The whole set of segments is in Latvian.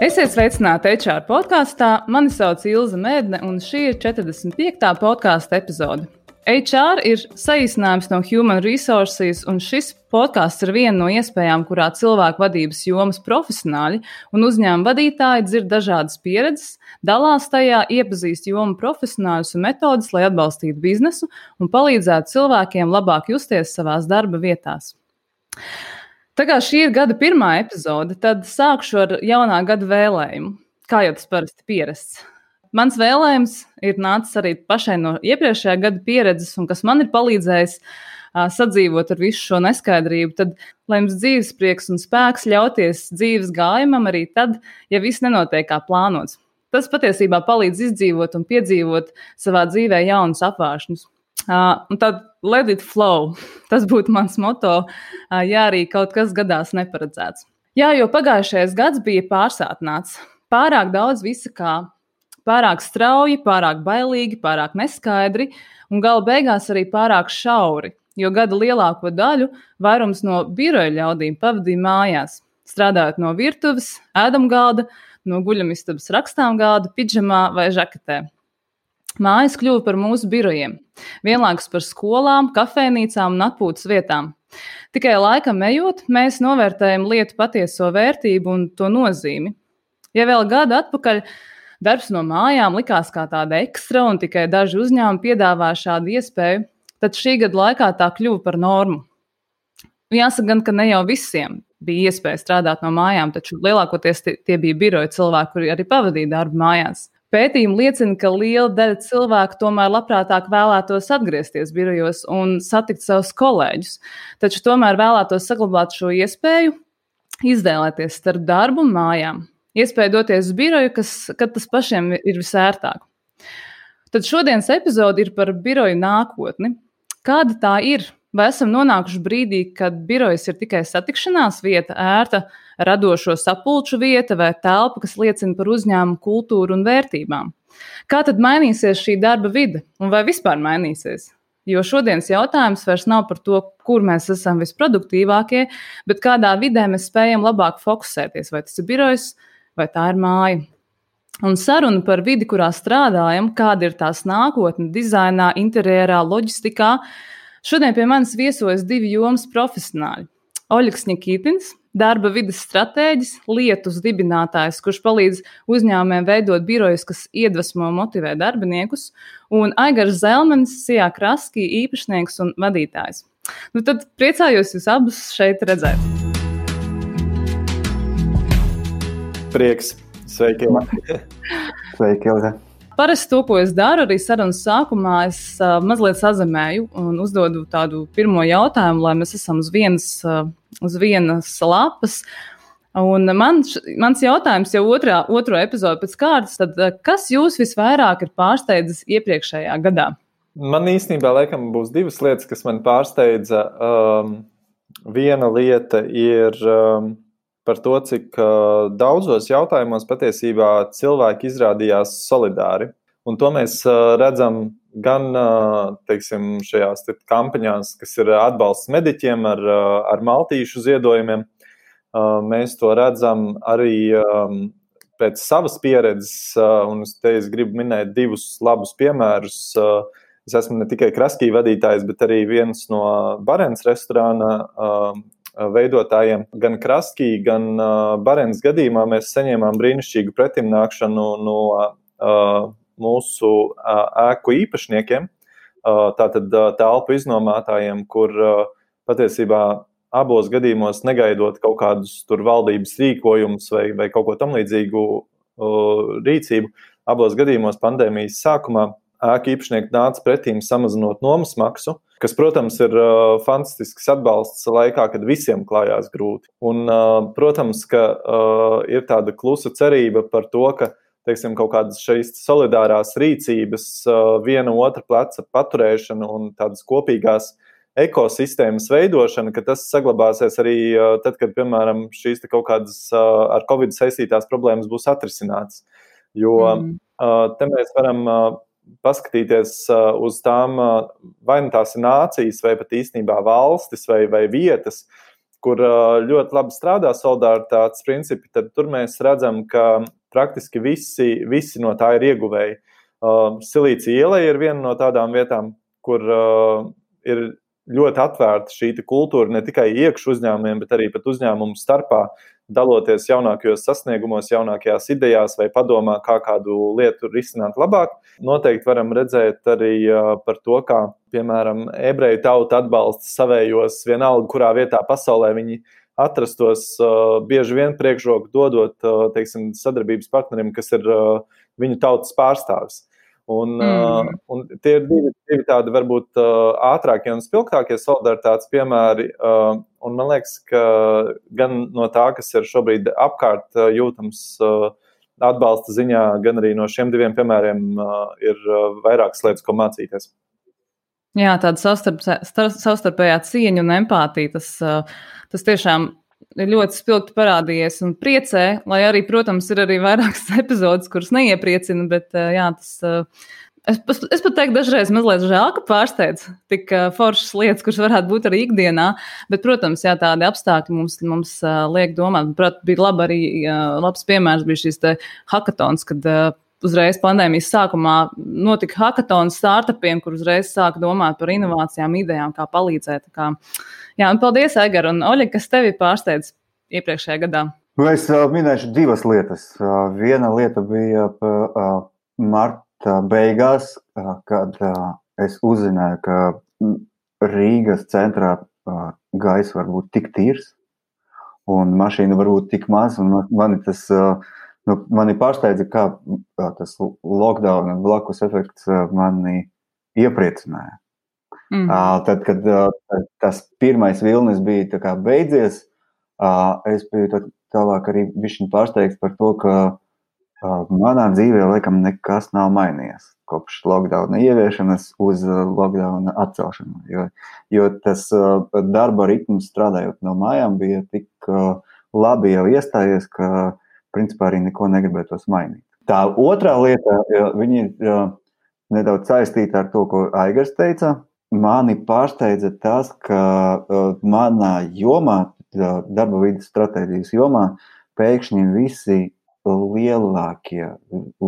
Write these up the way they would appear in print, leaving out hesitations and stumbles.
Esiet sveicināti HR podkāstā. Mani sauc Ilze Mēdne, un šī ir 45. podkāsta epizode. HR ir saīsinājums no Human Resources, un šis podkāsts ir viena no iespējām, kurā cilvēku vadības jomas profesionāļi un uzņēmuma vadītāji dzird dažādas pieredzes, dalās tajā, iepazīst jomu profesionāļus un metodes, lai atbalstītu biznesu un palīdzētu cilvēkiem labāk justies savās darba vietās. Tā kā šī ir gada pirmā epizode, tad sākšu ar jaunā gada vēlējumu, kā jau tas parasti pierasts. Mans vēlējums ir nācis arī pašai no iepriekšējā gada pieredzes, un kas man ir palīdzējis sadzīvot ar visu šo neskaidrību, tad, lai jums dzīves prieks un spēks ļauties dzīves gājumam arī tad, ja viss nenotiek kā plānots. Tas patiesībā palīdz izdzīvot un piedzīvot savā dzīvē jaunus apvāršņus. Un tad let it flow. Tas būtu mans moto, ja arī kaut kas gadās neparedzēts. Jā, jo pagājušais gads bija pārsātināts. Pārāk daudz visa kā. Pārāk strauji, pārāk bailīgi, pārāk neskaidri un gala beigās arī pārāk šauri, jo gada lielāko daļu vairums no biroja ļaudīm pavadīja mājās, strādājot no virtuves, ēdamgalda, no guļamistabas rakstāmgalda, pidžamā vai žaketē. Mājas kļuva par mūsu birojiem, vienlaikus par skolām, kafejnīcām un atpūtas vietām. Tikai laikam ejot, mēs novērtējam lietu patieso vērtību un to nozīmi. Ja vēl gadu atpakaļ darbs no mājām likās kā tāda ekstra un tikai daži uzņēmumi piedāvāja šādu iespēju, tad šī gada laikā tā kļuva par normu. Jāsaka gan, ka ne jau visiem bija iespēja strādāt no mājām, taču lielākoties tie bija biroja cilvēki, kuri arī pavadīja darbu mājās. Pētījumi liecina, ka liela daļa cilvēku tomēr labprātāk vēlētos atgriezties birojos un satikt savus kolēģus, taču tomēr vēlētos saglabāt šo iespēju, izvēlēties starp darbu un mājām. Iespēja doties uz biroju, kad tas pašiem ir visērtāk. Tad šodienas epizode ir par biroju nākotni. Kāda tā ir? Vai esam nonākuši brīdī, kad birojas ir tikai satikšanās vieta, ērta, radošo sapulču vieta vai telpa, kas liecina par uzņēmumu kultūru un vērtībām? Kā tad mainīsies šī darba vide un vai vispār mainīsies? Jo šodienas jautājums vairs nav par to, kur mēs esam visproduktīvākie, bet kādā vidē mēs spējam labāk fokusēties, vai tas ir birojs, vai tā ir māja. Un saruna par vidi, kurā strādājam, kāda ir tās nākotne dizainā, interjerā, loģistikā. Šodien pie manis viesojas divi jomas profesionāļi. Oļegs Ņikitins, darba vides stratēģis, lietus dibinātājs, kurš palīdz uzņēmumiem veidot birojus, kas iedvesmo un motivē darbiniekus, un Aigars Zelmenis, Sijā Kraskī, īpašnieks un vadītājs. Tad priecājos jūs abus šeit redzēt. Prieks. Sveiki, Ilze. Sveiki, Ilze. Parasti to, ko es daru, arī sarunas sākumā, es mazliet sazemēju un uzdodu tādu pirmo jautājumu, lai mēs esam uz vienas lapas. Un mans jautājums jau otro epizodu pēc kārtas, tad kas jūs visvairāk ir pārsteidzis iepriekšējā gadā? Man īstenībā laikam būs divas lietas, kas man pārsteidza. Viena lieta ir par to, cik daudzos jautājumos patiesībā cilvēki izrādījās solidāri. Un to mēs redzam gan, teiksim, šajās kampaņās, kas ir atbalsts mediķiem ar maltīšu ziedojumiem. Mēs to redzam arī pēc savas pieredzes, un es gribu minēt divus labus piemērus. Es esmu ne tikai Kraskī vadītājs, bet arī viens no Barens restorāna veidotājiem. Gan Kraskī, gan Barens gadījumā mēs saņēmām brīnišķīgu pretimnākšanu no mūsu ēku īpašniekiem, tātad telpu iznomātājiem, kur patiesībā abos gadījumos negaidot kaut kādus tur valdības rīkojumus vai kaut ko tam līdzīgu rīcību, abos gadījumos pandēmijas sākumā ēku īpašnieki nāca pretīm samazinot nomas maksu, kas, protams, ir fantastisks atbalsts laikā, kad visiem klājās grūti. Un, protams, ka ir tāda klusa cerība par to, ka, teiksim, kaut kādas šīs solidārās rīcības, viena otra pleca paturēšana un tādas kopīgās ekosistēmas veidošana, ka tas saglabāsies arī tad, kad, piemēram, šīs kaut kādas ar Covid saistītās problēmas būs atrisinātas. Jo te mēs varam paskatīties uz tām, vai nu tās ir nācijas, vai pat īstenībā valstis vai vietas, kur ļoti labi strādā solidaritātes principi, tad tur mēs redzam, ka praktiski visi no tā ir ieguvēji. Silīcija iela ir viena no tādām vietām, kur ir ļoti atvērta šī kultūra ne tikai iekš uzņēmumiem, bet arī pat uzņēmumu starpā, daloties jaunākajos sasniegumos, jaunākajās idejās vai padomā, kā kādu lietu risināt labāk. Noteikti varam redzēt arī par to, kā, piemēram, ebreju tauta atbalsta savējos vienalga, kurā vietā pasaulē viņi atrastos, bieži vien priekšroku dodot, teiksim, sadarbības partnerim, kas ir viņu tautas pārstāvis. Un tie ir divi tādi varbūt ātrākie un spilgtākie solidaritātes piemēri, un man liekas, ka gan no tā, kas ir šobrīd apkārt jūtams atbalsta ziņā, gan arī no šiem diviem piemēriem ir vairākas lietas, ko mācīties. Jā, tāda savstarpējā cieņa un empātija, tas tiešām ir ļoti spilgti parādījies un priecē, lai arī, protams, ir arī vairākas epizodes, kuras neiepriecina, bet jā, es pat teiktu dažreiz mazliet žēl, ka pārsteidz tik foršas lietas, kuras varētu būt arī ikdienā, bet, protams, jā, tādi apstākļi mums liek domāt. Prāt, bija labs piemērs bija šīs te hakatons, kad uzreiz pandēmijas sākumā notika hakatons startupiem, kur uzreiz sāka domāt par inovācijām, idejām, kā palīdzēt. Jā, un paldies, Aigar, un Oļeg, kas tevi pārsteidz iepriekšējā gadā? Es minēšu divas lietas. Viena lieta bija marta beigās, kad es uzzināju, ka Rīgas centrā gaisa var būt tik tīrs, un mašīna var būt tik maz, un mani pārsteidza, kā tas lockdown un blakus efekts mani iepriecināja. Tad, kad tas pirmais vilnis bija tā kā beidzies, es biju tālāk arī bišķiņ pārsteigts par to, ka manā dzīvē laikam nekas nav mainījies kopš lockdowna ieviešanas uz lockdowna atcelšanu. Jo tas darba ritms strādājot no mājām bija tik labi jau iestājies, ka principā arī neko negribētos mainīt. Tā otrā lieta, viņa ir nedaudz saistīta ar to, ko Aigars teica. Mani pārsteidza tas, ka manā jomā, darba vides stratēģijas jomā, pēkšņi visi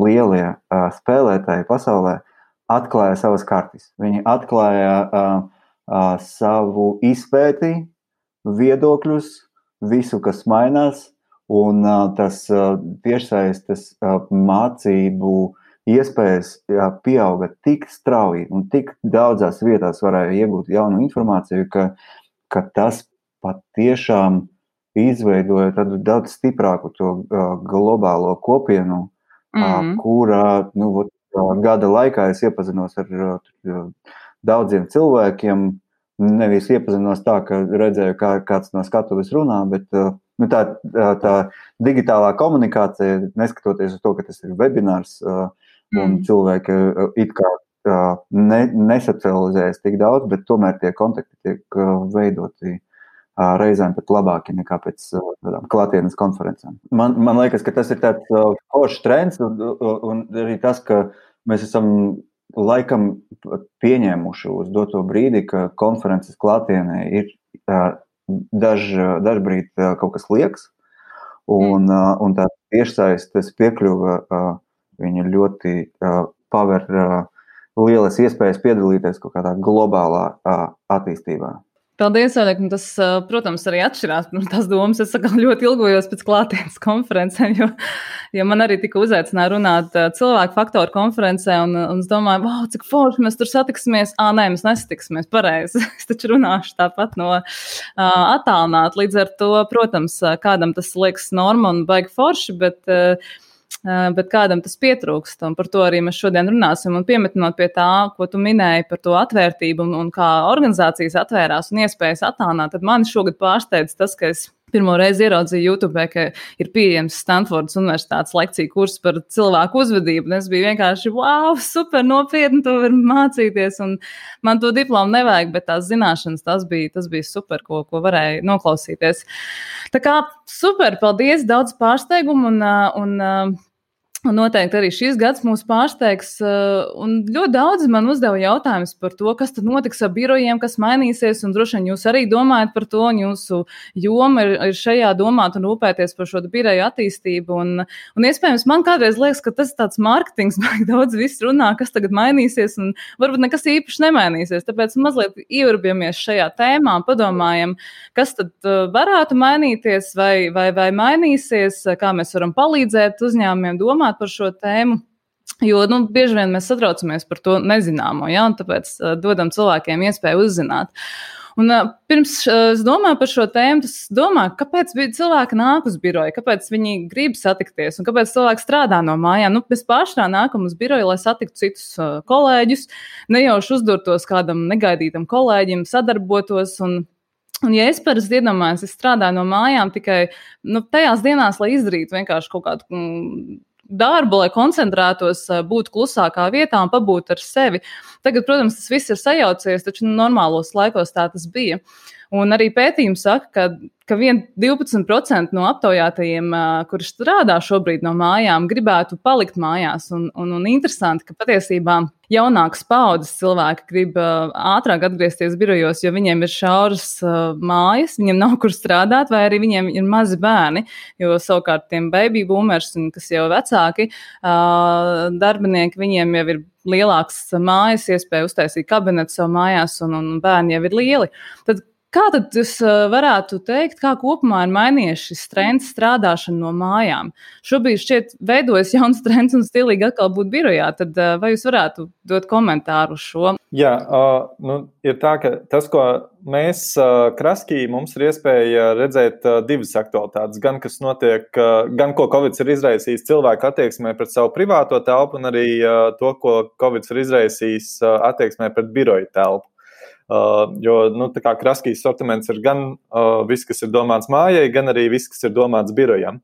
lielie spēlētāji pasaulē atklāja savas kartes. Viņi atklāja savu izpēti, viedokļus, visu, kas mainās, un tas tiešsaistes mācību iespējas pieauga tik strauji un tik daudzās vietās varēja iegūt jaunu informāciju, ka tas patiešām izveidoja tādu daudz stiprāku to globālo kopienu, kurā gada laikā es iepazinos ar daudziem cilvēkiem. Nevis iepazinos tā, ka redzēju, kāds no skatuves runā, bet tā digitālā komunikācija, neskatoties uz to, ka tas ir webinārs, un cilvēki it kā nesocializējas tik daudz, bet tomēr tie kontakti tiek veidoti reizēm pat labāki nekā pēc klātienes konferencēm. Man liekas, ka tas ir tāds foršs trends, un arī tas, ka mēs esam laikam pieņēmuši uz doto brīdi, ka konferences klātienē ir dažbrīd kaut kas liekas, un tā tiešsaistes piekļuva viņa ļoti paver lielas iespējas piedalīties kaut kādā globālā attīstībā. Paldies, Oļeg. Tas, protams, arī atšķirās no tās domas. Es ļoti ilgojos pēc klātienes konferencēm, jo man arī tika uzaicināja runāt cilvēku faktoru konferencē, un es domāju, wow, cik forši mēs tur satiksimies. Nē, mēs nesatiksimies, pareizi. Es taču runāšu tāpat no attālināt. Līdz ar to, protams, kādam tas liekas norma un baigi forši, bet kādam tas pietrūkst, un par to arī mēs šodien runāsim. Un piemetinot pie tā, ko tu minēji par to atvērtību un kā organizācijas atvērās un iespējas attālināt, tad mani šogad pārsteidz tas, ka es pirmo reizi ieraudzīju YouTube, ka ir pieejams Stanfordas universitātes lekciju kurs par cilvēku uzvedību, un es biju vienkārši, wow, super nopietni, to var mācīties, un man to diplomu nevajag, bet tās zināšanas, tas bija super, ko varēja noklausīties. Tā kā super, paldies, daudz pārsteigumu, un Un noteikti arī šis gads mūs pārsteigs. Un ļoti daudzi man uzdeva jautājumus par to, kas tad notiks ar birojiem, kas mainīsies. Un droši vien jūs arī domājat par to, un jūsu joma ir šajā domāt un rūpēties par šo biroju attīstību. Un iespējams, man kādreiz liekas, ka tas ir tāds mārketings, baigi daudz viss runā, kas tagad mainīsies, un varbūt nekas īpaši nemainīsies. Tāpēc mazliet ieurbamies šajā tēmā un padomājam, kas tad varētu mainīties vai mainīsies, kā mēs varam palīdzēt uzņēmumiem domāt par šo tēmu, jo bieži vien mēs satraucamies par to nezināmo, ja, un tāpēc dodam cilvēkiem iespēju uzzināt. Un pirms es domāju par šo tēmu, es domāju, kāpēc cilvēki nāk uz biroju, kāpēc viņi grib satikties un kāpēc cilvēki strādā no mājām. Mēs pārsvarā nākam uz biroju, lai satiktu citus kolēģus, nejauši uzdurtos kādam negaidītam kolēģim, sadarbotos un ja es parasti iedomājos, es strādāju no mājām tikai tajās dienās, lai izdarītu vienkārši kaut kādu darbu, lai koncentrētos, būt klusākā vietā un pabūt ar sevi. Tagad, protams, tas viss ir sajaucies, taču normālos laikos tā tas bija. Un arī pētījumi saka, ka 12% no aptaujātajiem, kuri strādā šobrīd no mājām, gribētu palikt mājās. Un interesanti, ka patiesībā jaunākas paudzes cilvēki grib ātrāk atgriezties birojos, jo viņiem ir šauras mājas, viņiem nav kur strādāt, vai arī viņiem ir mazi bērni, jo savukārt tiem baby boomers, kas jau vecāki darbinieki, viņiem jau ir lielāks mājas, iespēja uztaisīt kabinetu savu mājās, un bērni jau ir lieli. Tad kā tad jūs varētu teikt, kā kopumā ir mainījies šis trends strādāšana no mājām? Šobrīd šķiet veidojas jauns trends un stilīgi atkal būt birojā. Tad vai jūs varētu dot komentāru uz šo? Jā, ir tā, ka tas, ko mēs Kraskī, mums ir iespēja redzēt divas aktualitātes. Gan, kas notiek, gan ko Covid ir izraisījis cilvēku attieksmē pret savu privāto telpu, un arī to, ko Covid ir izraisījis attieksmē pret biroju telpu. Jo tā kā Kraskijas sortiments ir gan viss, kas ir domāts mājai, gan arī viss, kas ir domāts birojam.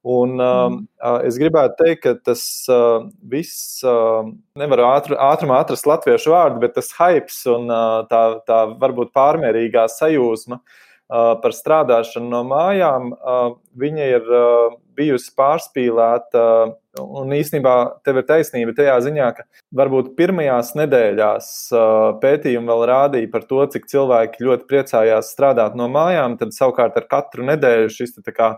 Un es gribētu teikt, ka tas viss, nevaru ātrumā atrast latviešu vārdu, bet tas hypes un tā varbūt pārmērīgā sajūsma par strādāšanu no mājām, viņa ir bijusi pārspīlēta, un īstenībā tev ir taisnība tajā ziņā, ka varbūt pirmajās nedēļās pētījumi vēl rādīja par to, cik cilvēki ļoti priecājās strādāt no mājām, tad savukārt ar katru nedēļu šis tā kā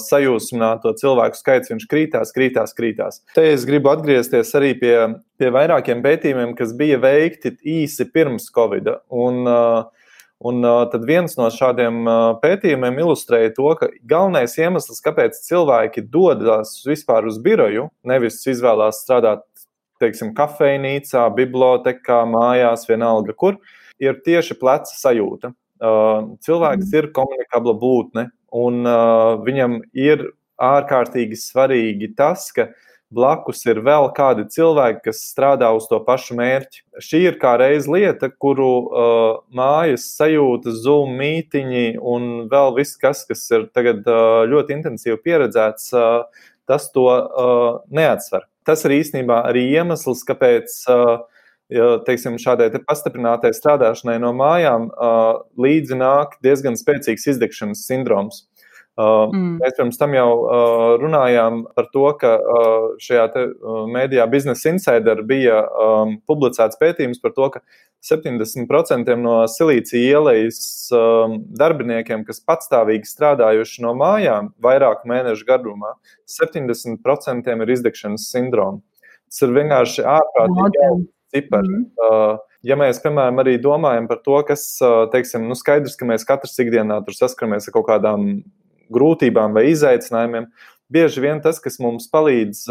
sajūsmināto cilvēku skaits, viņš krītās. Te es gribu atgriezties arī pie vairākiem pētījumiem, kas bija veikti īsi pirms Covida, un tad viens no šādiem pētījumiem ilustrēja to, ka galvenais iemesls, kāpēc cilvēki dodas vispār uz biroju, nevis izvēlās strādāt, teiksim, kafejnīcā, bibliotekā, mājās, vienalga kur, ir tieši pleca sajūta. Cilvēks ir komunikabla būtne, un viņam ir ārkārtīgi svarīgi tas, ka blakus ir vēl kādi cilvēki, kas strādā uz to pašu mērķi. Šī ir kā reiz lieta, kuru mājas sajūtas, Zoom mītiņi un vēl viss, kas ir tagad ļoti intensīvi pieredzēts, tas to neatsver. Tas ir īstenībā arī iemesls, kāpēc teiksim, šādai pastiprinātai strādāšanai no mājām līdzi nāk diezgan spēcīgs izdegšanas sindroms. Mēs pirms tam jau runājām par to, ka šajā mēdījā Business Insider bija publicēts pētījums par to, ka 70% no Silīcija ielejas darbiniekiem, kas patstāvīgi strādājuši no mājām vairāku mēnešu garumā, 70% ir izdegšanas sindroma. Tas ir vienkārši ārprātīgi cipari. Ja mēs, piemēram, arī domājam par to, kas, teiksim, skaidrs, ka mēs katrs ikdienā tur saskaramies ar kaut kādām grūtībām vai izaicinājumiem, bieži vien tas, kas mums palīdz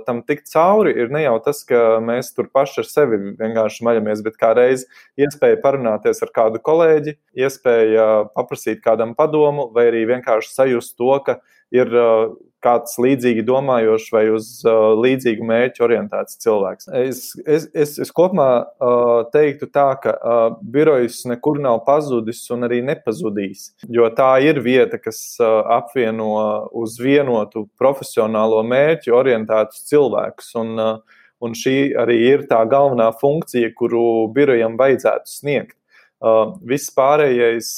tam tikt cauri, ir ne jau tas, ka mēs tur paši ar sevi vienkārši maļamies, bet kā reiz iespēja parunāties ar kādu kolēģi, iespēja paprasīt kādam padomu, vai arī vienkārši sajust to, ka ir kāds līdzīgi domājošs vai uz līdzīgu mērķu orientēts cilvēks. Es kopumā teiktu tā, ka birojs nekur nav pazudis un arī nepazudīs, jo tā ir vieta, kas apvieno uz vienotu profesionālo mērķu orientētus cilvēkus, un šī arī ir tā galvenā funkcija, kuru birojam vajadzētu sniegt. Viss pārējais,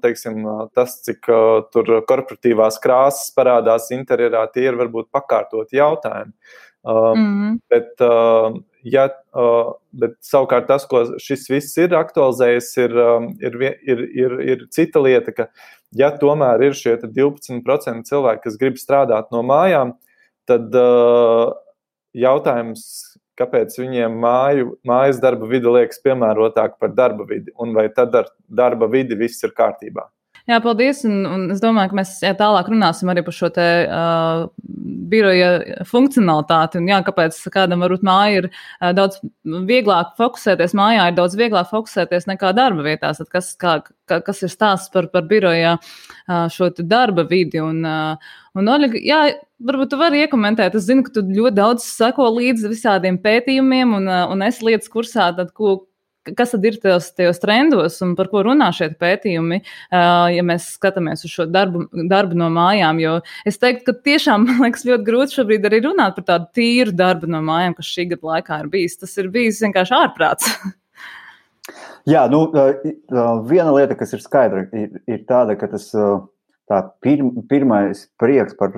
teiksim, tas, cik tur korporatīvās krāsas parādās interjerā, tie ir varbūt pakārtoti jautājumi. Bet savukārt tas, ko šis viss ir aktualizējis, ir cita lieta, ka ja tomēr ir šie 12% cilvēki, kas grib strādāt no mājām, tad jautājums, kāpēc viņiem mājas darba vide liekas piemērotāk par darba vidi, un vai tad ar darba vidi viss ir kārtībā? Jā, paldies, un es domāju, ka mēs tālāk runāsim arī par šo te biroja funkcionalitāti, un kāpēc kādam varbūt māja ir daudz vieglāk fokusēties, mājā ir daudz vieglāk fokusēties nekā darba vietās, tad kas ir stāsts par biroja šo te darba vidi, un Oļega, varbūt tu vari iekomentēt, es zinu, ka tu ļoti daudz seko līdzi visādiem pētījumiem, un esi lietas kursā, tad kas tad ir tajos trendos un par ko runā šie pētījumi, ja mēs skatāmies uz šo darbu no mājām, jo es teiktu, ka tiešām, man liekas, ļoti grūti šobrīd arī runāt par tādu tīru darbu no mājām, kas šī gada laikā ir bijis. Tas ir bijis vienkārši ārprāts. Jā, viena lieta, kas ir skaidra, ir tāda, ka tas pirmais prieks par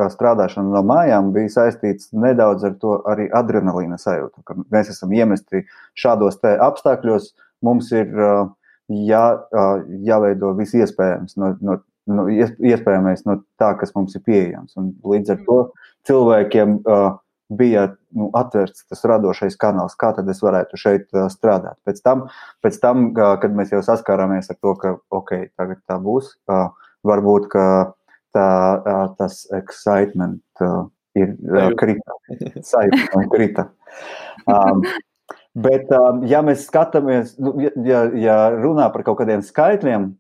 strādāšanu no mājām bija saistīts nedaudz ar to arī adrenalīna sajūtu, ka mēs esam iemesti šādos te apstākļos, mums ir jāveido viss iespējams iespējamais no tā, kas mums ir pieejams. Un līdz ar to cilvēkiem bija atvērts tas radošais kanāls, kā tad es varētu šeit strādāt. Pēc tam, kad mēs jau saskārāmies ar to, ka tagad tā būs, varbūt, ka tas excitement ir krita. Bet, ja mēs skatāmies, ja runā par kaut kādiem skaitļiem,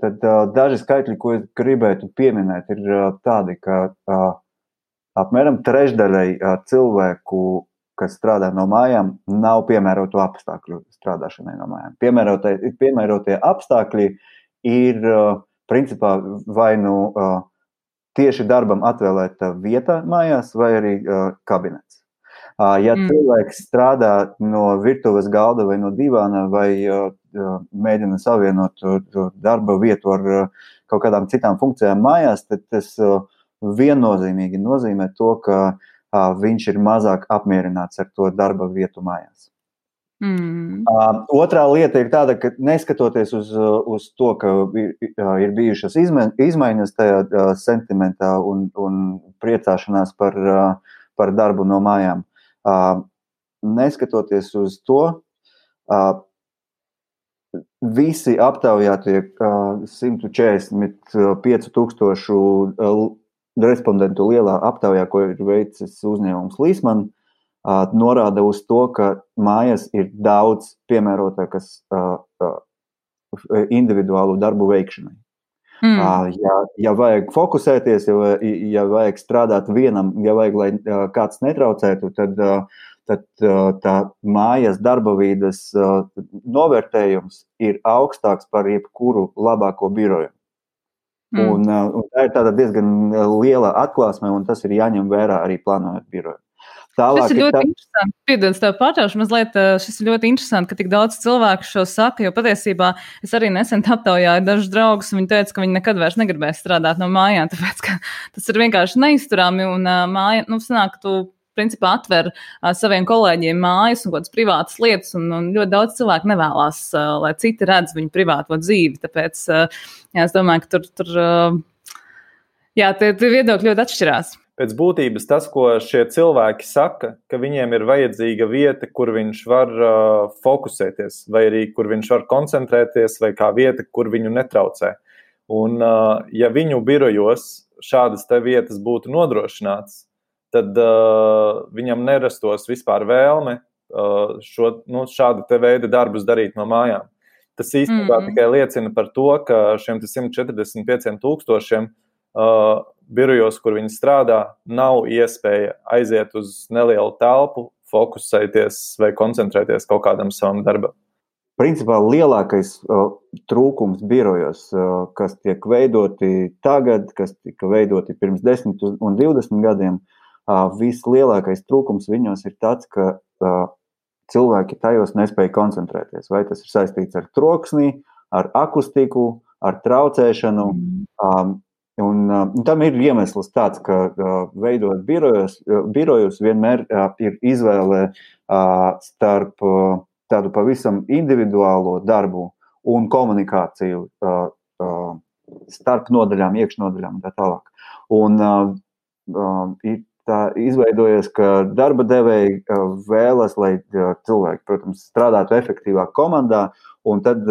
tad daži skaitļi, ko es gribētu pieminēt, ir tādi, ka apmēram trešdaļai cilvēku, kas strādā no mājām, nav piemērotu apstākļu strādāšanai no mājām. Piemērotie apstākļi ir principā vai tieši darbam atvēlēta vieta mājās, vai arī kabinets. Ja cilvēks strādā no virtuves galda vai no divāna, vai mēģina savienot darba vietu ar kaut kādām citām funkcijām mājās, tad tas viennozīmīgi nozīmē to, ka viņš ir mazāk apmierināts ar to darba vietu mājās. Otrā lieta ir tāda, ka neskatoties uz to, ka ir bijušas izmaiņas tajā sentimentā un priecāšanās par darbu no mājām, neskatoties uz to, visi aptaujātie 145,000 respondentu lielā aptaujā, ko ir veicis uzņēmums Līsman, norāda uz to, ka mājas ir daudz piemērotākas individuālu darbu veikšanai. Ja vajag fokusēties, ja vajag strādāt vienam, ja vajag, lai kāds netraucētu, tad tā mājas darba vīdes novērtējums ir augstāks par jebkuru labāko biroju. Un tā ir tāda diezgan liela atklāsme, un tas ir jāņem vērā arī plānojot biroju. Šis ir ļoti interesanti. Piedod, tev pārtraušu mazliet. Šis ir ļoti interesanti, ka tik daudz cilvēku šo saka, jo patiesībā es arī nesen aptaujāju dažus draugus, un viņi teica, ka viņi nekad vairs negribēs strādāt no mājām, tāpēc, ka tas ir vienkārši neizturami, un māja, sanāk, ka tu principā atver saviem kolēģiem mājas un kādas privātas lietas, un ļoti daudz cilvēku nevēlās, lai citi redz viņu privāto dzīvi, tāpēc, es domāju, ka tur tie viedokļi ļoti atšķirās. Pēc būtības tas, ko šie cilvēki saka, ka viņiem ir vajadzīga vieta, kur viņš var fokusēties, vai arī kur viņš var koncentrēties, vai kā vieta, kur viņu netraucē. Un ja viņu birojos šādas te vietas būtu nodrošināts, tad viņam nerastos vispār vēlme šādu te veidu darbus darīt no mājām. Tas īstenībā tikai liecina par to, ka šiem 145,000 birojos, kur viņi strādā, nav iespēja aiziet uz nelielu telpu, fokusēties vai koncentrēties kaut kādam savam darbam. Principā lielākais trūkums birojos, kas tiek veidoti tagad, kas tika veidoti pirms 10 un 20 gadiem, vislielākais trūkums viņos ir tāds, ka cilvēki tajos nespēja koncentrēties. Vai tas ir saistīts ar troksni, ar akustiku, ar traucēšanu. Un tam ir iemesls tāds, ka veidot birojus vienmēr ir izvēle starp tādu pavisam individuālo darbu un komunikāciju starp nodaļām, iekšnodaļām un tā tālāk. Un ir tā izveidojies, ka darba devēji vēlas, lai cilvēki, protams, strādātu efektīvā komandā, un tad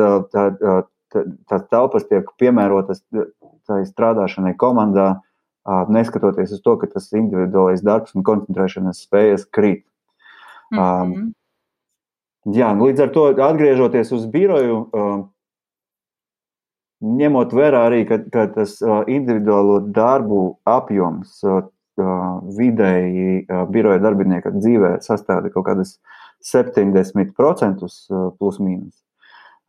tās telpas tiek piemērotas tai strādāšanai komandā, neskatoties uz to, ka tas individuālais darbs un koncentrēšanas spējas krīt. Jā, līdz ar to atgriežoties uz biroju, ņemot vērā arī, ka tas individuālo darbu apjoms vidēji biroja darbinieka dzīvē sastāda kaut kādas 70% plus mīnus.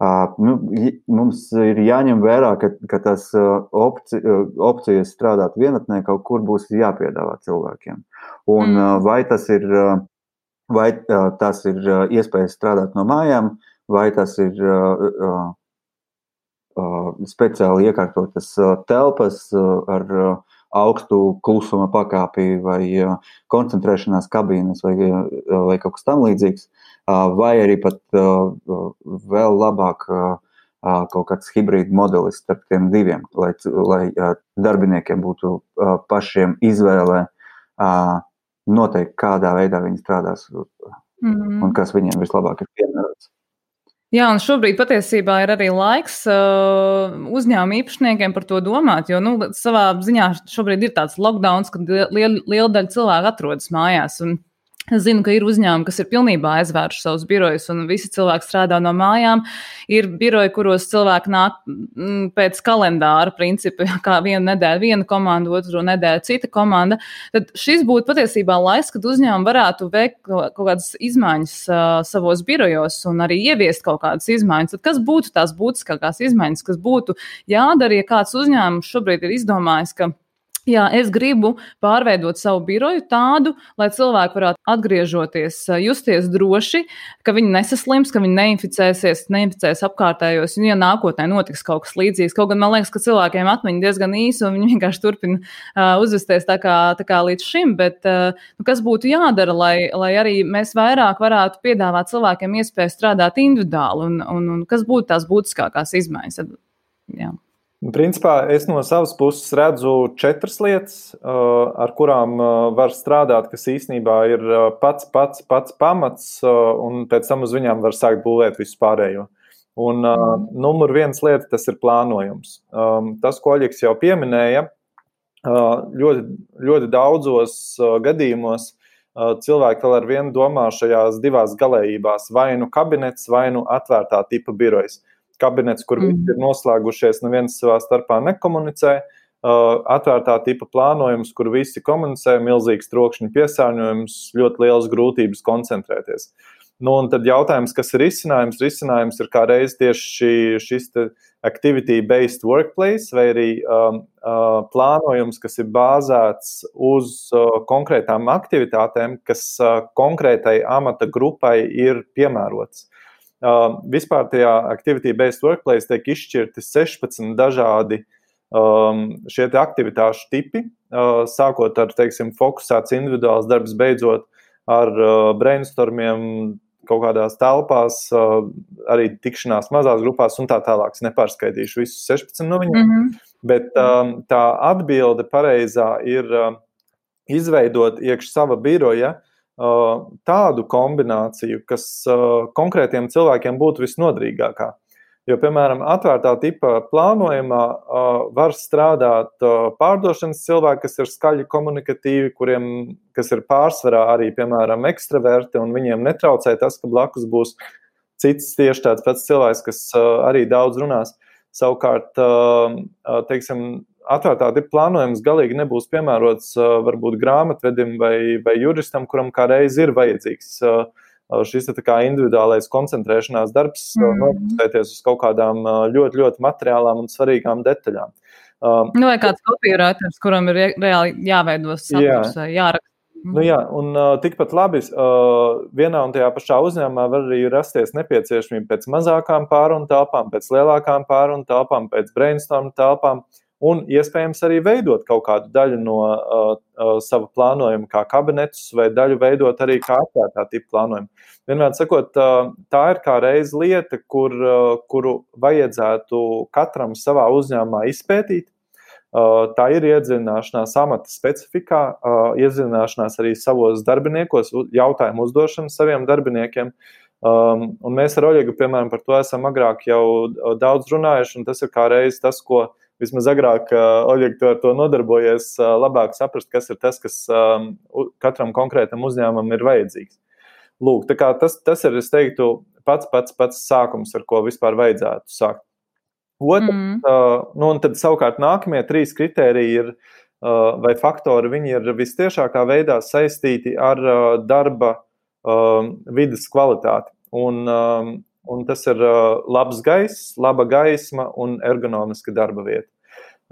Mums ir jāņem vērā, ka tas opcijas strādāt vienatnē kaut kur būs jāpiedāvā cilvēkiem. Un vai tas ir iespējas strādāt no mājām, vai tas ir speciāli iekārtotas telpas ar augstu klusuma pakāpi vai koncentrēšanās kabīnes vai kaut kas tam līdzīgs, vai arī pat vēl labāk kaut kāds hibrīda modelis starp tiem diviem, lai darbiniekiem būtu pašiem izvēle noteikt, kādā veidā viņi strādās un kas viņiem vislabāk ir piemērots. Jā, un šobrīd patiesībā ir arī laiks uzņēmuma īpašniekiem par to domāt, jo savā ziņā šobrīd ir tāds lockdowns, kad liela daļa cilvēku atrodas mājās. Un es zinu, ka ir uzņēmumi, kas ir pilnībā aizvēruši savus birojus, un visi cilvēki strādā no mājām. Ir biroji, kuros cilvēki nāk pēc kalendāra principa, kā vienu nedēļu viena komanda, otru nedēļu cita komanda. Tad šis būtu patiesībā laiks, kad uzņēmumi varētu veikt kaut kādas izmaiņas savos birojos un arī ieviest kaut kādas izmaiņas. Tad kas būtu tās būtiskākās izmaiņas, kas būtu jādara, ja kāds uzņēmums šobrīd ir izdomājis, ka jā, es gribu pārveidot savu biroju tādu, lai cilvēki varētu atgriežoties, justies droši, ka viņi nesaslims, ka viņi neinficēs apkārtējos, un ja nākotnē notiks kaut kas līdzīgs. Kaut gan man liekas, ka cilvēkiem atmiņa diezgan īsa, un viņi vienkārši turpina uzvesties tā kā līdz šim, bet kas būtu jādara, lai arī mēs vairāk varētu piedāvāt cilvēkiem iespēju strādāt individuāli, un kas būtu tās būtiskākās izmaiņas? Jā. Principā es no savas puses redzu 4 lietas, ar kurām var strādāt, kas īstenībā ir pats pamats, un pēc tam uz viņām var sākt būvēt visu pārējo. Un numur 1 lieta, tas ir plānojums. Tas, ko Oļegs jau pieminēja, ļoti daudzos gadījumos cilvēki vēl ar vienu domā šajās divās galējībās, vai nu kabinets, vai nu atvērtā tipa birojas. Kabinets, kur visi ir noslēgušies, neviens savā starpā nekomunicē, atvērtā tipa plānojums, kur visi komunicē, milzīgs trokšņu piesārņojums, ļoti lielas grūtības koncentrēties. Un tad jautājums, kas ir risinājums? Risinājums ir kā reiz tieši šis activity-based workplace, vai arī plānojums, kas ir bāzēts uz konkrētām aktivitātēm, kas konkrētai amata grupai ir piemērots. Vispār tajā activity-based workplace tiek izšķirti 16 dažādi šie aktivitāšu tipi, sākot ar, fokusēts individuāls darbs, beidzot ar brainstormiem kaut kādās telpās, arī tikšanās mazās grupās un tā tālāk. Es nepārskaitīšu visus 16 no viņiem, bet tā atbilde pareizā ir izveidot iekš sava biroja tādu kombināciju, kas konkrētiem cilvēkiem būtu visnodrīgākā. Jo, piemēram, atvērtā tipa plānojumā var strādāt pārdošanas cilvēki, kas ir skaļi komunikatīvi, kas ir pārsvarā arī, piemēram, ekstraverti, un viņiem netraucē tas, ka blakus būs cits tieši tāds pats cilvēks, kas arī daudz runās. Savukārt, atvērtā tipa plānojums galīgi nebūs piemērots varbūt grāmatvedim vai juristam, kuram kā reiz ir vajadzīgs šis tā kā individuālais koncentrēšanās darbs, nofokusēties uz kaut kādām ļoti, ļoti materiālām un svarīgām detaļām. Vai kāds copywriters, kuram ir reāli jāveido saturs vai jāraksta Nu jā, un tikpat labi vienā un tajā pašā uzņēmumā var arī rasties nepieciešamība pēc mazākām pārunu telpām, pēc lielākām pārunu telpām, pēc brainstorm telpām un iespējams arī veidot kaut kādu daļu no sava plānojuma kā kabinetus vai daļu veidot arī kā atvērtā tipa plānojumu. Vienmēr sakot, tā ir kā reiz lieta, kuru vajadzētu katram savā uzņēmumā izpētīt. Tā ir iedziļināšanās amata specifikā, iedziļināšanās arī savos darbiniekos, jautājumu uzdošanu saviem darbiniekiem. Un mēs ar Oļegu, piemēram, par to esam agrāk jau daudz runājuši, un tas ir kā reiz tas, ko vismaz agrāk Oļeg ar to nodarbojies, labāk saprast, kas ir tas, kas katram konkrētam uzņēmumam ir vajadzīgs. Lūk, tā kā tas ir, es teiktu, pats sākums, ar ko vispār vajadzētu sākt. Un tad savukārt nākamie 3 kritēriji ir, vai faktori, viņi ir vistiešākā veidā saistīti ar darba vides kvalitāti. Un tas ir labs gaiss, laba gaisma un ergonomiska darba vieta.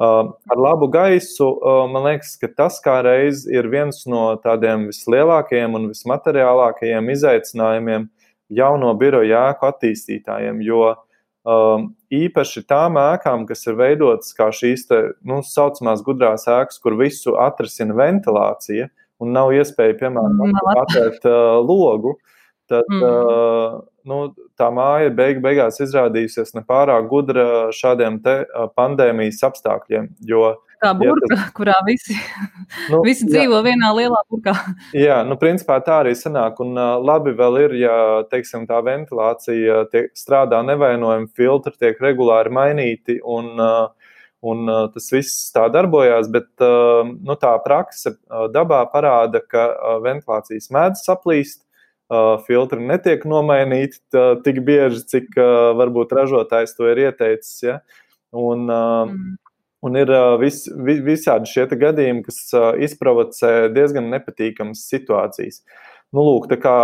Ar labu gaisu, man liekas, ka tas kā reiz ir viens no tādiem vislielākajiem un vismateriālākajiem izaicinājumiem jauno biroju ēku attīstītājiem, jo īpaši tām ēkām, kas ir veidotas kā šīs saucamās gudrās ēkas, kur visu atrisina ventilācija un nav iespēja, piemēram, atvērt logu, tad tā māja beigās izrādījusies nepārāk gudra šādiem te pandēmijas apstākļiem, jo kā burka, kurā visi dzīvo vienā lielā burkā. Jā, principā tā arī sanāk, un labi vēl ir, ja, teiksim, tā ventilācija strādā nevainojami, filtri tiek regulāri mainīti, un tas viss tā darbojās, bet tā prakse dabā parāda, ka ventilācijas mēdz saplīst, filtri netiek nomainīti tik bieži, cik varbūt ražotājs to ir ieteicis, ja, un ir visādi šie gadījumi, kas izprovocē diezgan nepatīkamas situācijas. Lūk, tā kā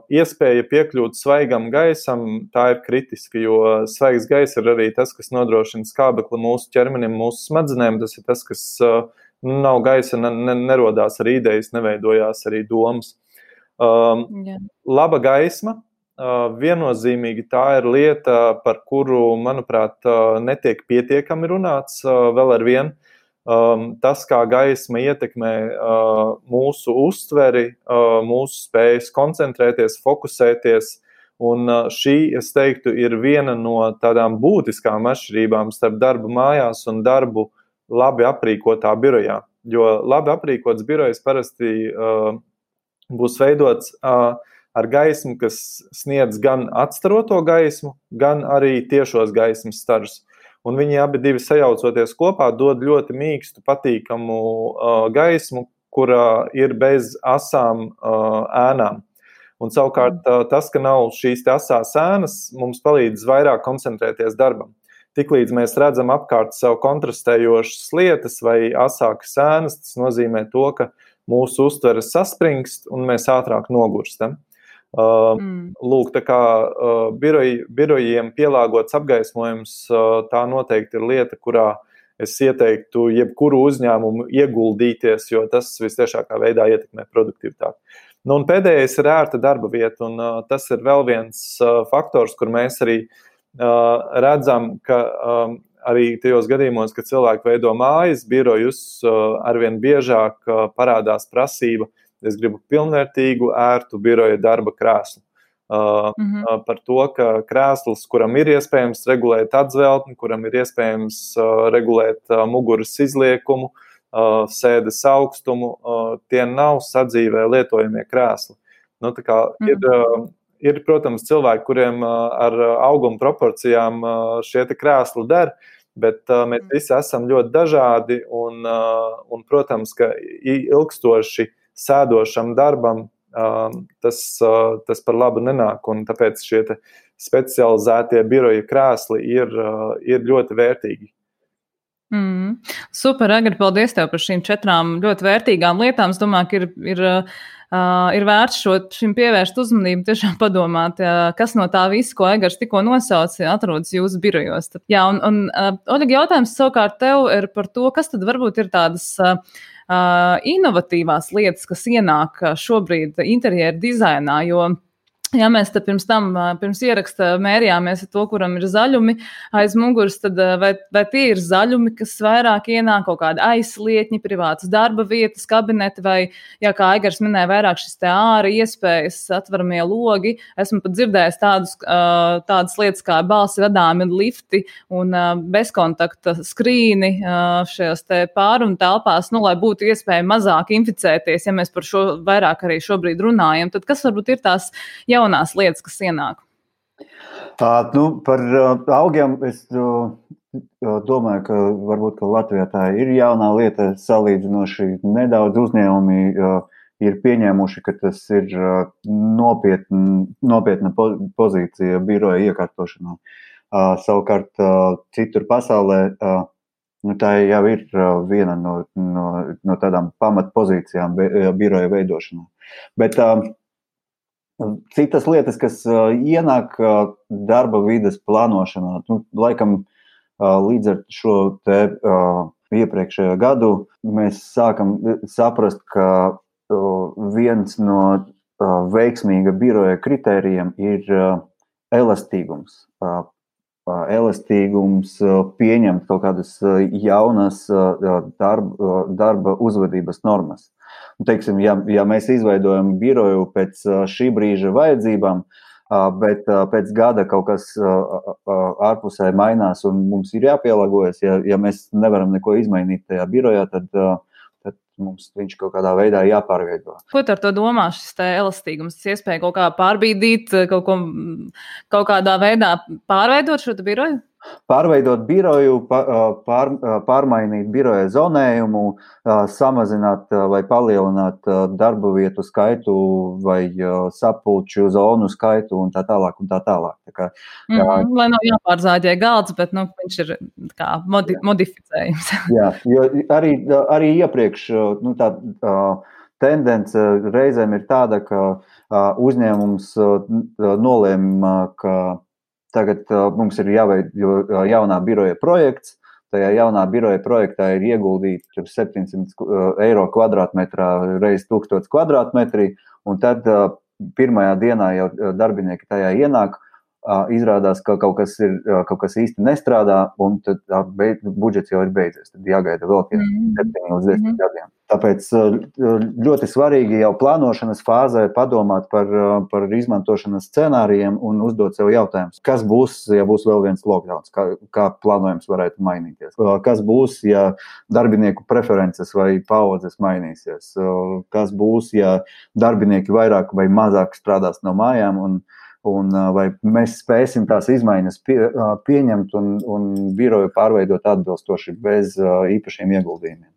iespēja piekļūt svaigam gaisam, tā ir kritiska, jo svaigs gaiss ir arī tas, kas nodrošina skābekli mūsu ķermenim, mūsu smadzenēm. Tas ir tas, kas nav gaisa, nerodās arī idejas, neveidojās arī domas. Laba gaisma. Viennozīmīgi tā ir lieta, par kuru, manuprāt, netiek pietiekami runāts vēl ar vienu. Tas, kā gaisma ietekmē mūsu uztveri, mūsu spējas koncentrēties, fokusēties, un šī, es teiktu, ir viena no tādām būtiskām atšķirībām starp darbu mājās un darbu labi aprīkotā birojā. Jo labi aprīkots birojs parasti būs veidots ar gaismu, kas sniedz gan atstaroto gaismu, gan arī tiešos gaismas staržus. Un viņi abi divi sajaucoties kopā dod ļoti mīkstu, patīkamu gaismu, kurā ir bez asām ēnām. Un savukārt tas, ka nav šīs asās ēnas, mums palīdz vairāk koncentrēties darbam. Tiklīdz mēs redzam apkārt sev kontrastējošas lietas vai asākas ēnas, tas nozīmē to, ka mūsu uztveres saspringst un mēs ātrāk nogurstam. Lūk, tā kā birojiem pielāgots apgaismojums, tā noteikti ir lieta, kurā es ieteiktu jebkuru uzņēmumu ieguldīties, jo tas vistiešākā veidā ietekmē produktivitāti. Un pēdējais ir ērta darba vieta, un tas ir vēl viens faktors, kur mēs arī redzam, ka arī tajos gadījumos, kad cilvēki veido mājas birojus, arvien biežāk parādās prasība. Es gribu pilnvērtīgu, ērtu biroja darba krēslu. Par to, ka krēsls, kuram ir iespējams regulēt atzveltni, kuram ir iespējams regulēt muguras izliekumu, sēdes augstumu, tie nav sadzīvē lietojamie krēsli. Tā kā ir, protams, cilvēki, kuriem ar auguma proporcijām šie te krēsli der, bet mēs visi esam ļoti dažādi un protams, ka ilgstoši sēdošam darbam tas par labu nenāk, un tāpēc šie specializētie biroja krēsli ir ļoti vērtīgi. Super, Agri, paldies tev par šīm 4 ļoti vērtīgām lietām. Es domāju, ka ir ir vērts šim pievērst uzmanību, tiešām padomāt, kas no tā viss, ko Egars tikko nosauca, atrodas jūsu birojos. Jā, un Oļega, jautājums savukārt tev ir par to, kas tad varbūt ir tādas inovatīvās lietas, kas ienāk šobrīd interjeru dizainā, jo ja mēs te pirms ieraksta mērījāmies ar to, kuram ir zaļumi aiz muguras, tad vai tie ir zaļumi, kas vairāk ienāk, kaut kādi aizslietņi, privātas darba vietas, kabineti, vai, jā, kā Aigars minēja, vairāk šis te āra iespējas, atveramie logi. Esmu pat dzirdējis tādas lietas kā balsi vadāmi lifti un bezkontakta skrīni šajās te pārunu telpās, lai būtu iespēja mazāk inficēties, ja mēs par šo vairāk arī šobrīd runājam. Tad kas varbūt ir tās jaunās lietas, kas ienāk? Par augiem es domāju, ka varbūt ka Latvijā tā ir jaunā lieta salīdzinoši. Nedaudz uzņēmumi ir pieņēmuši, ka tas ir nopietna pozīcija biroja iekārtošanā. Savukārt citur pasaulē tā jau ir viena no tādām pamatpozīcijām biroja veidošanā. Bet citas lietas, kas ienāk darba vides plānošanā, laikam līdz ar šo te iepriekšējo gadu mēs sākam saprast, ka viens no veiksmīga biroja kritērijiem ir elastīgums. Elastīgums pieņemt kaut kādas jaunas darba uzvedības normas. Teiksim, ja mēs izveidojam biroju pēc šī brīža vajadzībām, bet pēc gada kaut kas ārpusē mainās un mums ir jāpielāgojas, ja mēs nevaram neko izmainīt tajā birojā, tad mums viņš kaut kādā veidā jāpārveido. Ko tu ar to domā, šis te elastīgums? Tas iespēja kaut kā pārbīdīt, kaut kādā veidā pārveidot šo biroju? Pārveidot biroju, pārmainīt biroja zonējumu, samazināt vai palielināt darba vietu skaitu vai sapulču zonu skaitu un tā tālāk un tā tālāk. Lai nav jāpārzāģē galds, bet viņš ir kā modificējums. Jā, jo arī iepriekš tā tendence reizēm ir tāda, ka uzņēmums nolēma, ka tagad mums ir jāveido jaunā biroja projekts. Tajā jaunā biroja projektā ir ieguldīti 700 eiro kvadrātmetrā reiz 1000 kvadrātmetri, un tad pirmajā dienā jau darbinieki tajā ienāk, izrādās, ka kaut kas īsti nestrādā, un tad budžets jau ir beidzies. Tad jāgaida vēl 7 līdz 10 gadiem. Tāpēc ļoti svarīgi jau plānošanas fāzē padomāt par izmantošanas scenārijiem un uzdot sev jautājumus. Kas būs, ja būs vēl viens lockdowns? Kā plānojums varētu mainīties? Kas būs, ja darbinieku preferences vai paudzes mainīsies? Kas būs, ja darbinieki vairāk vai mazāk strādās no mājām un vai mēs spēsim tās izmaiņas pieņemt un biroju pārveidot atbilstoši bez īpašiem ieguldījumiem.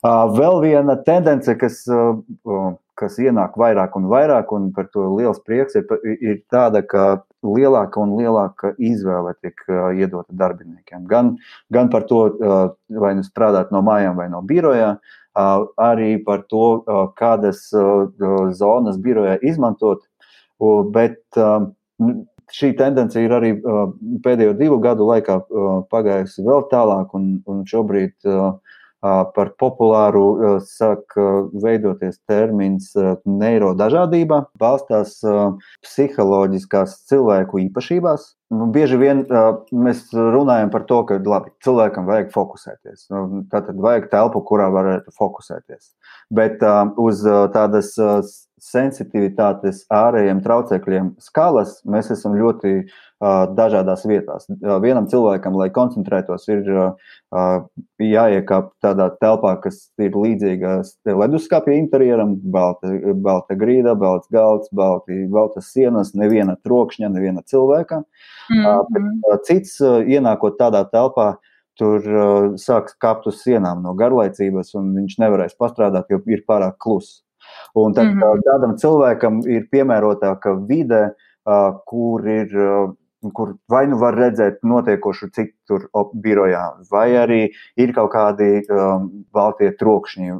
Vēl viena tendence, kas ienāk vairāk un vairāk, un par to liels prieks, ir tāda, ka lielāka un lielāka izvēle tiek iedota darbiniekiem. Gan par to, vai nu strādāt no mājām vai no birojā, arī par to, kādas zonas birojā izmantot, bet šī tendence ir arī pēdējo 2 gadu laikā pagājusi vēl tālāk, un šobrīd par populāru sāk veidoties termins neirodažādība, balstās psiholoģiskās cilvēku īpašībās. Bieži vien mēs runājam par to, ka labi, cilvēkam vajag fokusēties. Tātad vajag telpu, kurā varētu fokusēties. Bet uz tādas sensitivitātes ārējiem traucekļiem skalas mēs esam ļoti dažādās vietās. Vienam cilvēkam, lai koncentrētos, ir jāiekāp tādā telpā, kas ir līdzīga leduskapja interjeram, balta grīda, balts galds, baltas sienas, neviena trokšņa, neviena cilvēka. Bet cits, ienākot tādā telpā, tur sāks kāpt uz sienām no garlaicības, un viņš nevarēs pastrādāt, jo ir pārāk kluss. Un tad tādam cilvēkam ir piemērotāka vide, kur vai nu var redzēt notiekošu tur birojā, vai arī ir kaut kādi baltie trokšņi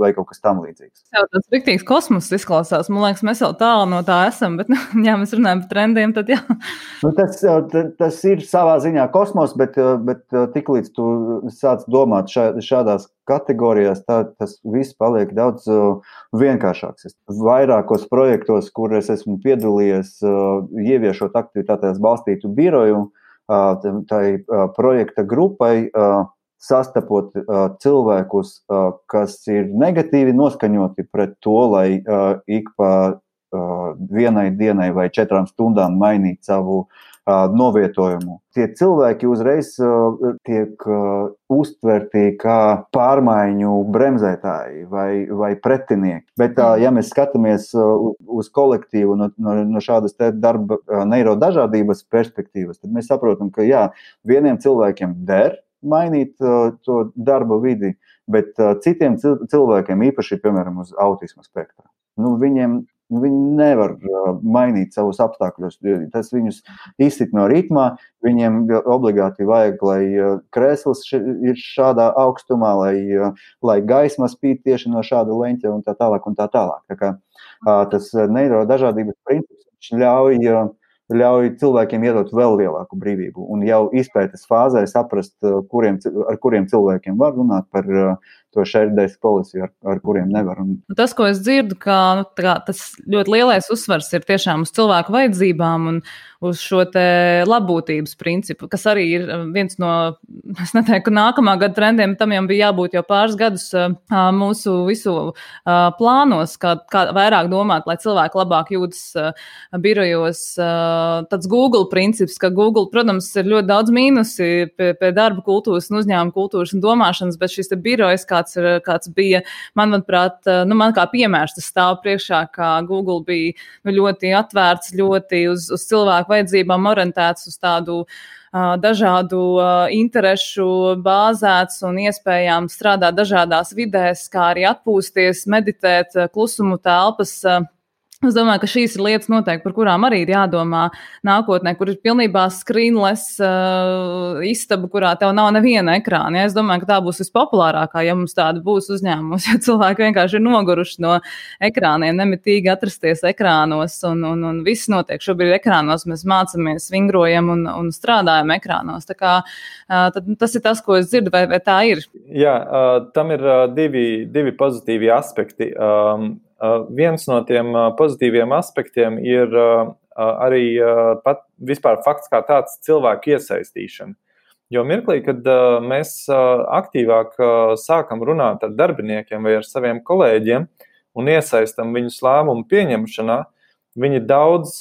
vai kaut kas tam līdzīgs. Tas jau tāds riktīgs kosmos izklausās. Man liekas, mēs vēl tālu no tā esam, bet, ja mēs runājam par trendiem, tad jā. Tas ir savā ziņā kosmos, bet tiklīdz tu sāc domāt šādās kategorijās, tas viss paliek daudz vienkāršāks. Vairākos projektos, kur es esmu piedalījies, ieviešot aktivitātēs balstītu biroju, tai projekta grupai, sastapot cilvēkus, kas ir negatīvi noskaņoti pret to, lai ik pa vienai dienai vai 4 stundām mainīt savu novietojumu. Tie cilvēki uzreiz tiek uztverti kā pārmaiņu bremzētāji vai pretinieki. Bet, ja mēs skatāmies uz kolektīvu no šādas darba neirodažādības perspektīvas, tad mēs saprotam, ka jā, vieniem cilvēkiem der mainīt to darba vidi, bet citiem cilvēkiem, īpaši, piemēram, uz autisma spektra, viņi nevar mainīt savus apstākļus. Tas viņus izsit no ritmā, viņiem obligāti vajag, lai krēsls ir šādā augstumā, lai gaisma spīd tieši no šāda leņķa un tā tālāk un tā tālāk. Tā kā tas neirodažādības princips ļauj cilvēkiem iedot vēl lielāku brīvību un jau izpētes fāzē saprast, ar kuriem cilvēkiem var runāt par to shared-based policy, ar kuriem nevar. Tas, ko es dzirdu, ka tas ļoti lielais uzsvars ir tiešām uz cilvēku vajadzībām un uz šo te labbūtības principu, kas arī ir viens no, es neteiktu, nākamā gada trendiem, tam jau bija jābūt jau pāris gadus mūsu visu plānos, kā vairāk domāt, lai cilvēki labāk jūtas birojos. Tāds Google princips, ka Google, protams, ir ļoti daudz mīnusi pie darba kultūras un uzņēmuma kultūras un domāšanas, bet šis te birojas, kāds bija, manuprāt, man kā piemērs tas stāv priekšā, kā Google bija ļoti atvērts, ļoti uz cilvēku vajadzībām orientēts, uz tādu dažādu interešu bāzēts un iespējām strādāt dažādās vidēs, kā arī atpūsties, meditēt, klusumu telpas. Es domāju, ka šīs ir lietas noteikti, par kurām arī ir jādomā nākotnē, kur ir pilnībā screenless istaba, kurā tev nav neviena ekrāna. Ja? Es domāju, ka tā būs vispopulārākā, ja mums tāda būs uzņēmums, jo cilvēki vienkārši ir noguruši no ekrāniem, nemitīgi atrasties ekrānos un viss notiek. Šobrīd ekrānos mēs mācamies, vingrojam un strādājam ekrānos. Tā kā tas ir tas, ko es dzirdu, vai tā ir? Jā, tam ir divi pozitīvi aspekti. Viens no tiem pozitīviem aspektiem ir arī pat vispār fakts kā tāds cilvēku iesaistīšana. Jo mirklī, kad mēs aktīvāk sākam runāt ar darbiniekiem vai ar saviem kolēģiem un iesaistam viņus lēmumu pieņemšanā, viņi daudz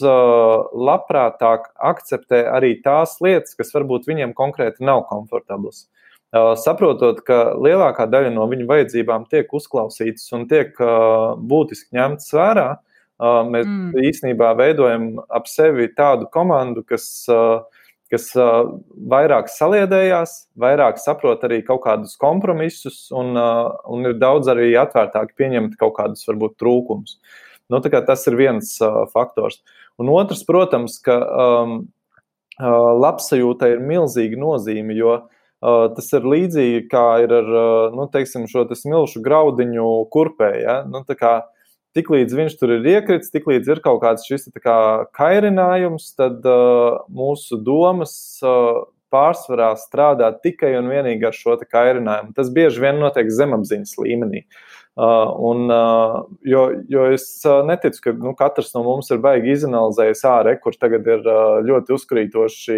labprātāk akceptē arī tās lietas, kas varbūt viņiem konkrēti nav komfortablas. Saprotot, ka lielākā daļa no viņu vajadzībām tiek uzklausītas un tiek būtiski ņemtas vērā, mēs īstenībā veidojam ap sevi tādu komandu, kas vairāk saliedējās, vairāk saprot arī kaut kādus kompromisus un ir daudz arī atvērtāki pieņemt kaut kādus varbūt trūkumus. Tā kā tas ir viens faktors. Un otrs, protams, ka labsajūtai ir milzīga nozīme, jo tas ir līdzīgi, kā ir ar, šo smilšu graudiņu kurpē, ja? Tā kā tiklīdz viņš tur ir iekrits, tiklīdz ir kaut kāds šis kairinājums, tad mūsu domas pārsvarā strādā tikai un vienīgi ar šo kairinājumu. Tas bieži vien notiek zemapziņas līmenī. Jo es neticu, ka katrs no mums ir baigi izanalizējis kur tagad ir ļoti uzkrītoši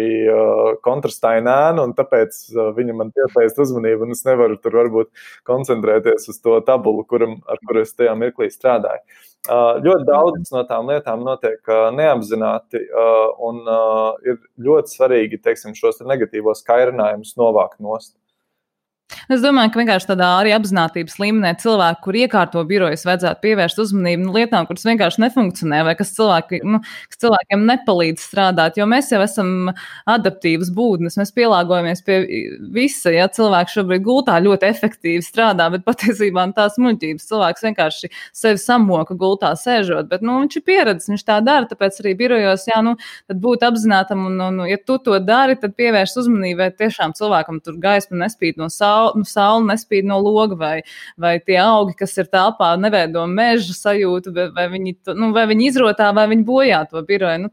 kontrastaina ēna, un tāpēc viņa man piesaist uzmanību, un es nevaru tur varbūt koncentrēties uz to tabulu, ar kuru es tajā mirklī strādāju. Ļoti daudz no tām lietām notiek neapzināti, un ir ļoti svarīgi, šos negatīvos kairinājumus novākt nost. Es domāju, ka vienkārši tādā arī apzinātības līmenī cilvēki, kur iekārto birojas, vajadzētu pievērst uzmanību lietām, kuras vienkārši nefunkcionē, vai kas cilvēkiem nepalīdz strādāt, jo mēs jau esam adaptīvas būtnes, mēs pielāgojamies pie visa, ja cilvēks šobrīd gultā ļoti efektīvi strādā, bet patiesībā tās muļķības cilvēks vienkārši sevi samoka gultā sēžot, bet, viņš ir pieredzis, viņš tā dara, tāpēc arī birojos, tad būt apzinātam, un ja tu to dari, tad pievērst uzmanību, vai tiešām cilvēkam tur gaisma nespīd no saule nespīd no loga, vai tie augi, kas ir telpā, neveido meža sajūtu, vai viņi izrotā, vai viņi bojā to biroju.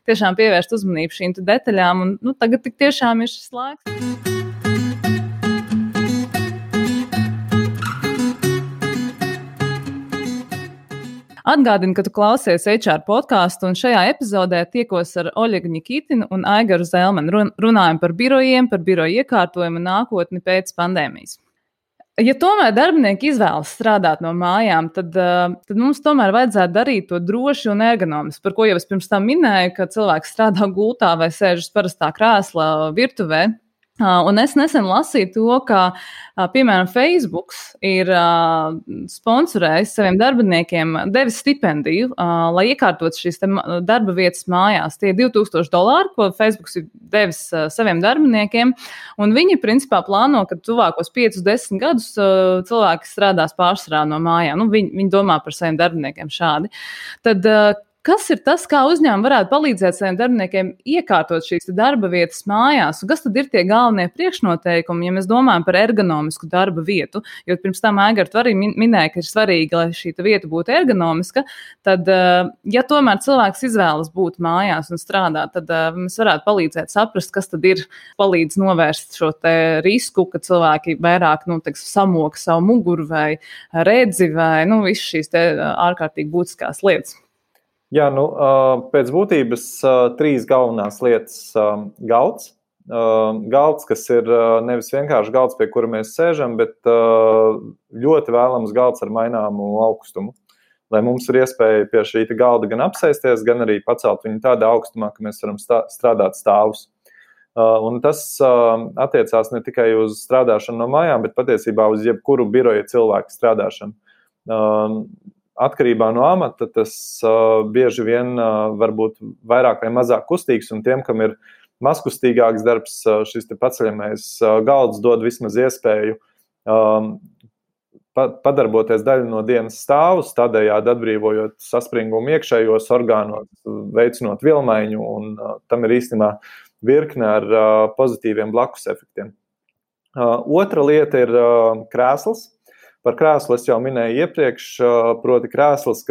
Tiešām pievērst uzmanību šīm detaļām, un tagad tik tiešām ir šis laiks. Atgādinu, ka tu klausies HR podcastu, un šajā epizodē tiekos ar Oļegu Ņikitinu un Aigaru Zelmenu. Runājam par birojiem, par biroju iekārtojumu un nākotni pēc pandēmijas. Ja tomēr darbinieki izvēlas strādāt no mājām, tad mums tomēr vajadzētu darīt to droši un ergonomiski, par ko jau es pirms tam minēju, ka cilvēks strādā gultā vai sēžas parastā krēslā virtuvē. Un es nesen lasīju to, ka, piemēram, Facebook ir sponsorējis saviem darbiniekiem, devis stipendiju, lai iekārtot šīs darba vietas mājās. Tie ir $2000, ko Facebook ir devis saviem darbiniekiem, un viņi principā plāno, ka tuvākos 5-10 gadus cilvēki strādās pārsvarā no mājām. Viņi domā par saviem darbiniekiem šādi. Tad kas ir tas, kā uzņēmumi varētu palīdzēt saviem darbiniekiem iekārtot šīs darba vietas mājās? Un kas tad ir tie galvenie priekšnoteikumi, ja mēs domājam par ergonomisku darba vietu? Jo pirms tam Aigar, tu arī minēja, ka ir svarīgi, lai šī vieta būtu ergonomiska. Tad, ja tomēr cilvēks izvēlas būt mājās un strādāt, tad mēs varētu palīdzēt saprast, kas tad ir palīdz novērst šo risku, ka cilvēki vairāk samoka savu muguru vai redzi vai visas šīs ārkārtīgi būtiskās lietas. Jā, pēc būtības 3 galvenās lietas galds. Galds, kas ir nevis vienkārši galds, pie kura mēs sēžam, bet ļoti vēlams galds ar maināmu augstumu. Lai mums ir iespēja pie šī galda gan apsēsties, gan arī pacelt viņu tādā augstumā, ka mēs varam strādāt stāvus. Un tas attiecās ne tikai uz strādāšanu no mājām, bet patiesībā uz jebkuru biroja cilvēku strādāšanu. Atkarībā no amata tas bieži vien var būt vairāk vai mazāk kustīgs, un tiem, kam ir mazkustīgāks darbs, šis paceļamais galds dod vismaz iespēju padarboties daļu no dienas stāvus, tādējādi atbrīvojot saspringumu iekšējos orgānos, veicinot vilmaiņu, un tam ir īstenībā virkne ar pozitīviem blakus efektiem. Otra lieta ir krēsls. Par krēslu es jau minēju iepriekš, proti krēsls,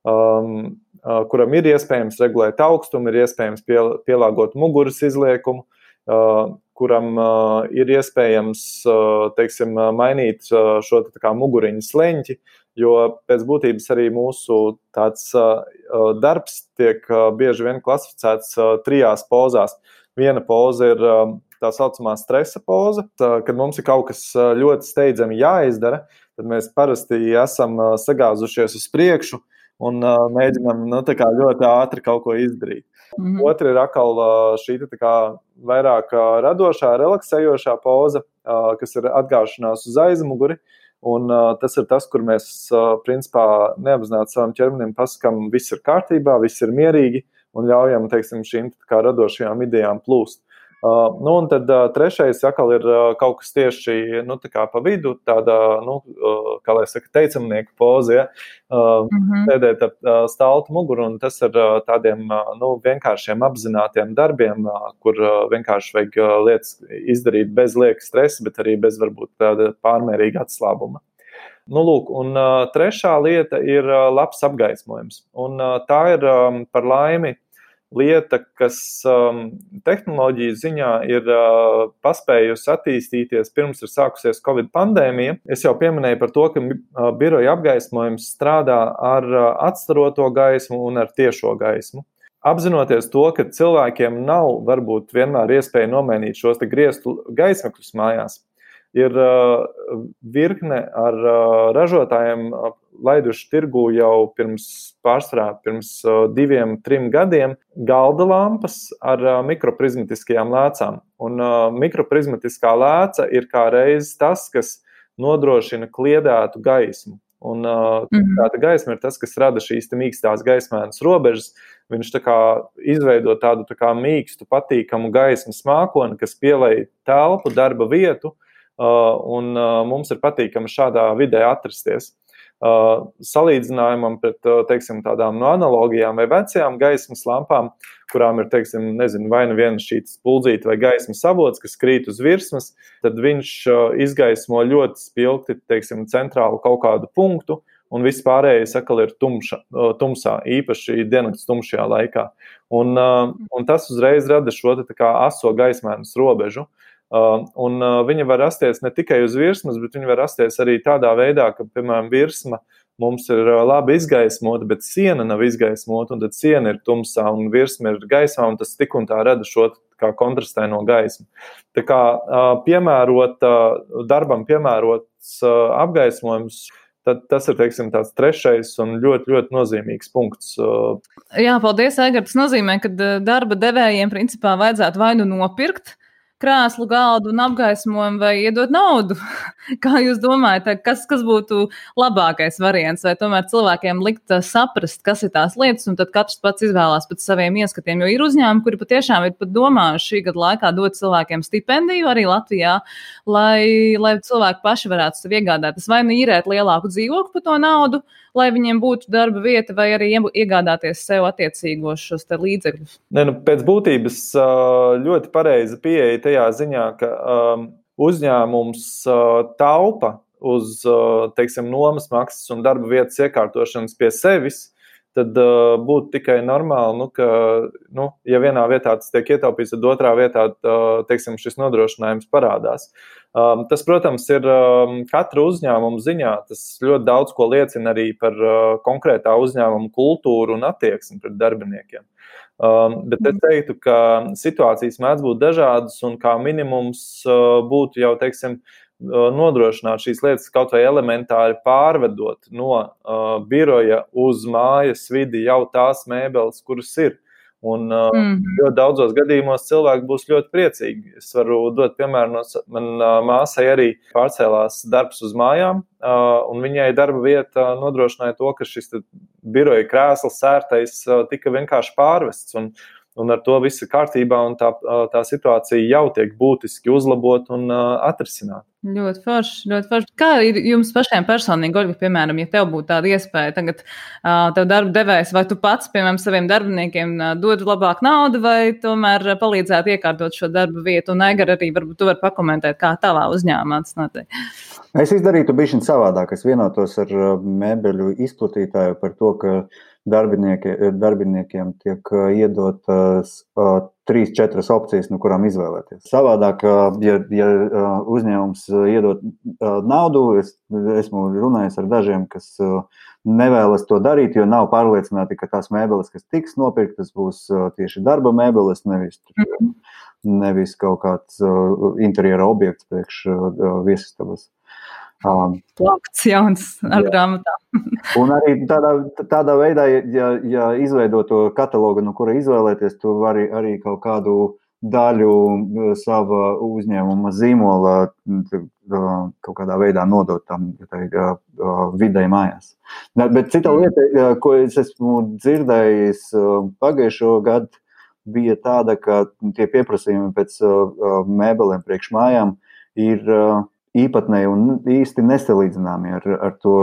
kuram ir iespējams regulēt augstumu, ir iespējams pielāgot muguras izliekumu, kuram ir iespējams, mainīt šo muguriņu sleņķi, jo pēc būtības arī mūsu tāds darbs tiek bieži vien klasificēts 3 pozās. Viena poza ir tā saucamā stresa poza, kad mums ir kaut kas ļoti steidzami jāizdara, tad mēs parasti esam sagāzušies uz priekšu un mēģinam ļoti ātri kaut ko izdarīt. Mm-hmm. Otra ir atkal šī vairāk radošā, relaksējošā poza, kas ir atgāšanās uz aizmuguri, un tas ir tas, kur mēs principā neapzināti savam ķermenim pasakam, viss ir kārtībā, viss ir mierīgi, un ļaujam, šīm radošajām idejām plūst. Un tad trešais atkal ir kaut kas tieši pa vidu, tāda, kā lai saka, teicamnieku poze, ja? Sēdēt ap staltu muguru, un tas ir tādiem vienkāršiem apzinātiem darbiem, kur vienkārši vajag lietas izdarīt bez lieka stresa, bet arī bez varbūt tāda pārmērīga atslābuma. Un trešā lieta ir labs apgaismojums, un tā ir par laimi lieta, kas tehnoloģiju ziņā ir paspējusi attīstīties pirms ir sākusies Covid pandēmija. Es jau pieminēju par to, ka biroja apgaismojums strādā ar atstaroto gaismu un ar tiešo gaismu. Apzinoties to, ka cilvēkiem nav varbūt vienmēr iespēja nomainīt šos grieztu gaismakļus mājās, ir virkne ar ražotājiem laiduši tirgū jau pirms 2-3 gadiem galda lampas ar mikroprizmatiskajām lēcām. Un mikroprizmatiskā lēca ir kā reiz tas, kas nodrošina kliedētu gaismu. Un tāda gaisma ir tas, kas rada šīs mīkstās gaismēnas robežas. Viņš tā kā izveido tādu tā kā mīkstu, patīkamu gaismas mākoni, kas pielej telpu, darba vietu, un mums ir patīkami šādā vidē atrasties. Salīdzinājumam pret, teiksim, tādām no analogijām vai vecajām gaismas lampām, kurām ir, teiksim, nezinu, vai nu viena šītas puldzīte vai gaismas avots, kas krīt uz virsmas, tad viņš izgaismo ļoti spilgti, teiksim, centrālu kaut kādu punktu, un viss pārējais atkal ir tumsā, īpaši diennakts tumšajā laikā. Un tas uzreiz rada šo tā kā aso gaismēnas robežu. Un viņa var rasties ne tikai uz virsmas, bet viņa var rasties arī tādā veidā, ka, piemēram, virsma mums ir labi izgaismota, bet siena nav izgaismota, un tad siena ir tumsā, un virsma ir gaismā, un tas tik un tā rada šo kā kontrastēno gaismu. Tā kā darbam piemērots apgaismojums, tad tas ir, teiksim, tāds trešais un ļoti, ļoti nozīmīgs punkts. Jā, paldies, Aigar. Tas nozīmē, ka darba devējiem principā vajadzētu vai nu nopirkt krēslu, galdu un apgaismojumu vai iedot naudu. Kā jūs domājat, kas būtu labākais variants? Vai tomēr cilvēkiem likt saprast, kas ir tās lietas, un tad katrs pats izvēlās pēc saviem ieskatiem? Jo ir uzņēmumi, kuri patiešām ir pat domājuši šī gada laikā dot cilvēkiem stipendiju arī Latvijā, lai cilvēki paši varētu sev iegādāties vai nu īrēt lielāku dzīvokli par to naudu, lai viņiem būtu darba vieta, vai arī iegādāties sev attiecīgos šos te līdzekļus? Pēc būtības ļoti pareiza pieeja tajā ziņā, ka uzņēmums taupa uz, teiksim, nomas maksas un darba vietas iekārtošanas pie sevis, tad būtu tikai normāli, ka, ja vienā vietā tas tiek ietaupīts, tad otrā vietā, teiksim, šis nodrošinājums parādās. Tas, protams, ir katra uzņēmuma ziņā. Tas ļoti daudz ko liecina arī par konkrētā uzņēmuma kultūru un attieksmi pret darbiniekiem. Bet es teiktu, ka situācijas mēdz būt dažādas un kā minimums būtu jau, teiksim, nodrošināt šīs lietas kaut vai elementāri pārvedot no biroja uz mājas vidi jau tās mēbeles, kuras ir. Un ļoti daudzos gadījumos cilvēki būs ļoti priecīgi. Es varu dot piemēru, man māsai arī pārcēlās darbs uz mājām, un viņai darba vieta nodrošināja to, ka šis biroja krēsls sērtais tika vienkārši pārvests, un ar to viss ir kārtībā, un tā situācija jau tiek būtiski uzlabot un atrisināt. Ļoti forši, ļoti forši. Kā ir jums pašiem personīgi, Olga, piemēram, ja tev būtu tāda iespēja tagad tev darba devējs, vai tu pats, piemēram, saviem darbiniekiem dod labāk naudu, vai tomēr palīdzētu iekārtot šo darba vietu? Un Aigar arī varbūt tu vari pakomentēt, kā tavā uzņēmumā tas notiek. Es izdarītu bišķiņ savādāk. Es vienotos ar mēbeļu izplatītāju par to, ka darbiniekiem tiek iedotas 3-4 opcijas, no kurām izvēlēties. Savādāk, ja uzņēmums iedod naudu, esmu runājis ar dažiem, kas nevēlas to darīt, jo nav pārliecināti, ka tās mēbeles, kas tiks nopirktas, būs tieši darba mēbeles, nevis kaut kāds interjera objekts priekš viesistabas. Plakts jauns ar grāmatām. Un arī tādā veidā, ja izveido to katalogu, no kura izvēlēties, tu vari arī kaut kādu daļu sava uzņēmuma zīmola kaut kādā veidā nodot tam videi mājās. Bet cita lieta, ko es esmu dzirdējis pagājušo gadu, bija tāda, ka tie pieprasījumi pēc mēbelēm priekš mājām ir īpatnēji un īsti nesalīdzināmi ar to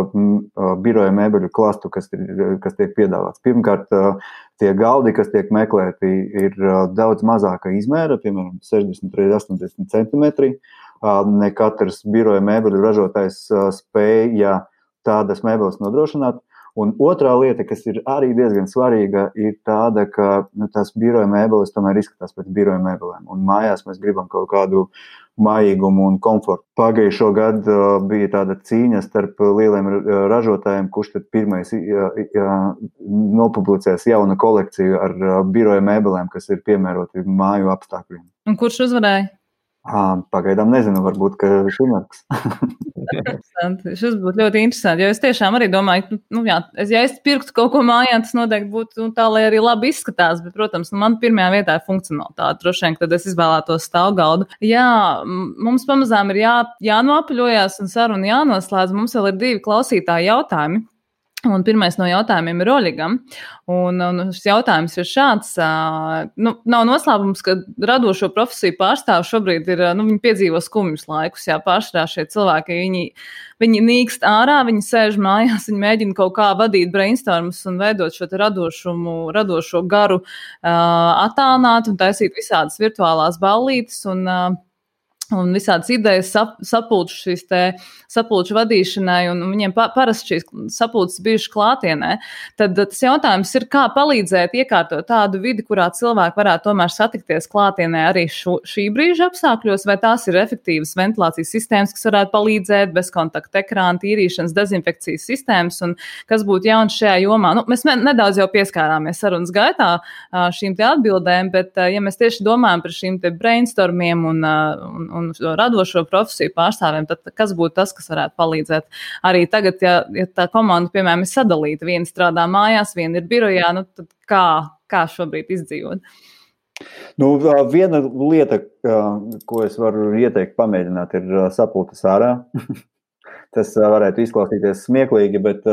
biroja mēbeļu klastu, kas tiek piedāvāts. Pirmkārt, tie galdi, kas tiek meklēti, ir daudz mazāka izmēra, piemēram, 60-80 centimetri. Ne katrs biroja mēbeļu ražotājs spēja tādas mēbeles nodrošināt. Un otrā lieta, kas ir arī diezgan svarīga, ir tāda, ka tās biroja mēbeles tomēr izskatās pēc biroja mēbelēm. Un mājās mēs gribam kaut kādu mājīgumu un komfortu. Pagājušo gadu bija tāda cīņa starp lieliem ražotājiem, kurš tad pirmais nopublicēs jaunu kolekciju ar biroja mēbelēm, kas ir piemēroti māju apstākļiem. Un kurš uzvarēja? Pagaidām nezinu, varbūt, ka šimats. Šis būtu ļoti interesanti, jo es tiešām arī domāju, ja es pirktu kaut ko mājā, tas noteikti būtu tā, lai arī labi izskatās, bet, protams, man pirmajā vietā ir funkcionalitāte. Droši vien, tad es izvēlētos stāvgaldu. Jā, mums pamazām ir jānoapaļojās un saruna jānoslēdz. Mums vēl ir 2 klausītāji jautājumi. Un pirmais no jautājumiem ir Oļegam. Un šis jautājums ir šāds. Nav noslēpums, ka radošo profesiju pārstāvi šobrīd ir, viņi piedzīvo skumjus laikus. Pārsvarā šie cilvēki, viņi nīkst ārā, viņi sēž mājās, viņi mēģina kaut kā vadīt brainstormus un veidot šo radošo garu, attālināt un taisīt visādas virtuālās ballītes un visādas idejas sapulču vadīšanai, un viņiem parasti šīs sapulces bijušas klātienē. Tad tas jautājums ir, kā palīdzēt iekārtot tādu vidi, kurā cilvēki varētu tomēr satikties klātienē arī šī brīža apstākļos, vai tās ir efektīvas ventilācijas sistēmas, kas varētu palīdzēt, bezkontakta ekrāna, tīrīšanas, dezinfekcijas sistēmas, un kas būtu jauns šajā jomā. Mēs nedaudz jau pieskārāmies sarunas gaitā šīm te atbildēm, bet ja mēs tieši domājam par šīm te brainstormiem un radošo profesiju pārstāvjiem, tad kas būtu tas, kas varētu palīdzēt? Arī tagad, ja tā komanda, piemēram, ir sadalīta, viena strādā mājās, viena ir birojā, tad kā šobrīd izdzīvot? Viena lieta, ko es varu ieteikt pamēģināt, ir sapulces ārā. Tas varētu izklausīties smieklīgi, bet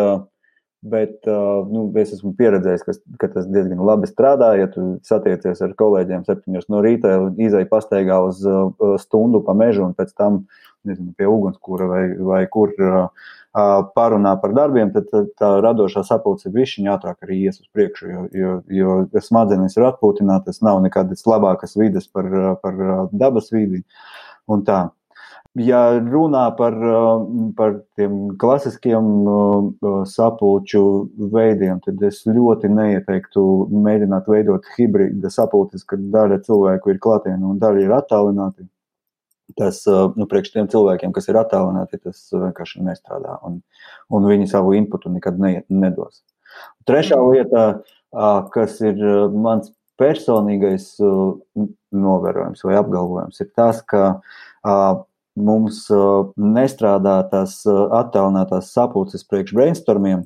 es esmu pieredzējis, ka tas diezgan labi strādā. Ja tu satiecies ar kolēģiem 7 no rīta, izej pastaigā uz stundu pa mežu un pēc tam, pie ugunskura vai kur parunā par darbiem, tad tā radošā sapulce bišķiņ ātrāk arī ies uz priekšu, jo smadzenes ir atpūtinātas, nav nekādas labākas vides par dabas vidi un tā. Ja runā par tiem klasiskiem sapulču veidiem, tad es ļoti neieteiktu mēģināt veidot hibrīda sapulces, kad daļa cilvēku ir klātienē un daļa ir attālināti. Tas, priekš tiem cilvēkiem, kas ir attālināti, tas vienkārši nestrādā, un viņi savu inputu nekad nedos. Trešā lieta, kas ir mans personīgais novērojums vai apgalvojums, ir tas, ka mums nestrādā tās attālinātās sapulces priekš brainstormiem,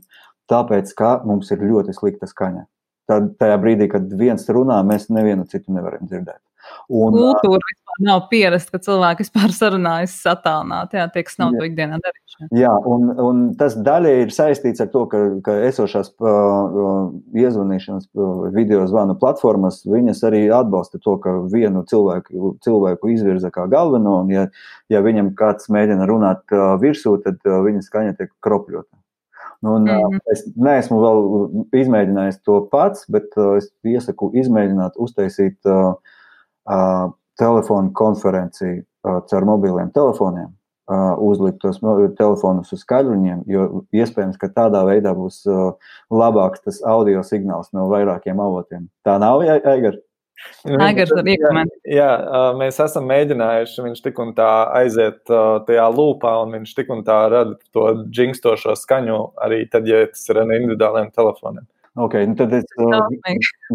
tāpēc, ka mums ir ļoti slikta skaņa. Tajā brīdī, kad viens runā, mēs nevienu citu nevaram dzirdēt. Kultūra vispār nav pierasta, ka cilvēki vispār sarunājas attālināti, tie, kas nav to ikdienā darījuši. Jā, un tas daļai ir saistīts ar to, ka esošās iezvanīšanas video zvanu platformas, viņas arī atbalsta to, ka vienu cilvēku izvirza kā galveno, un ja viņam kāds mēģina runāt virsū, tad viņa skaņa tiek kropļota. Es neesmu vēl izmēģinājis to pats, bet es iesaku izmēģināt uztaisīt telefonu konferenciju caur mobiliem telefoniem, uzlikt tos telefonus uz skaļruņiem, jo iespējams, ka tādā veidā būs labāks tas audio signāls no vairākiem avotiem. Tā nav, Aigar? Aigars var iekomentēt. Jā, mēs esam mēģinājuši, viņš tik un tā aiziet tajā lūpā, un viņš tik un tā rada to džingstošo skaņu arī tad, ja tas ir ar individuāliem telefoniem. Ok, tad es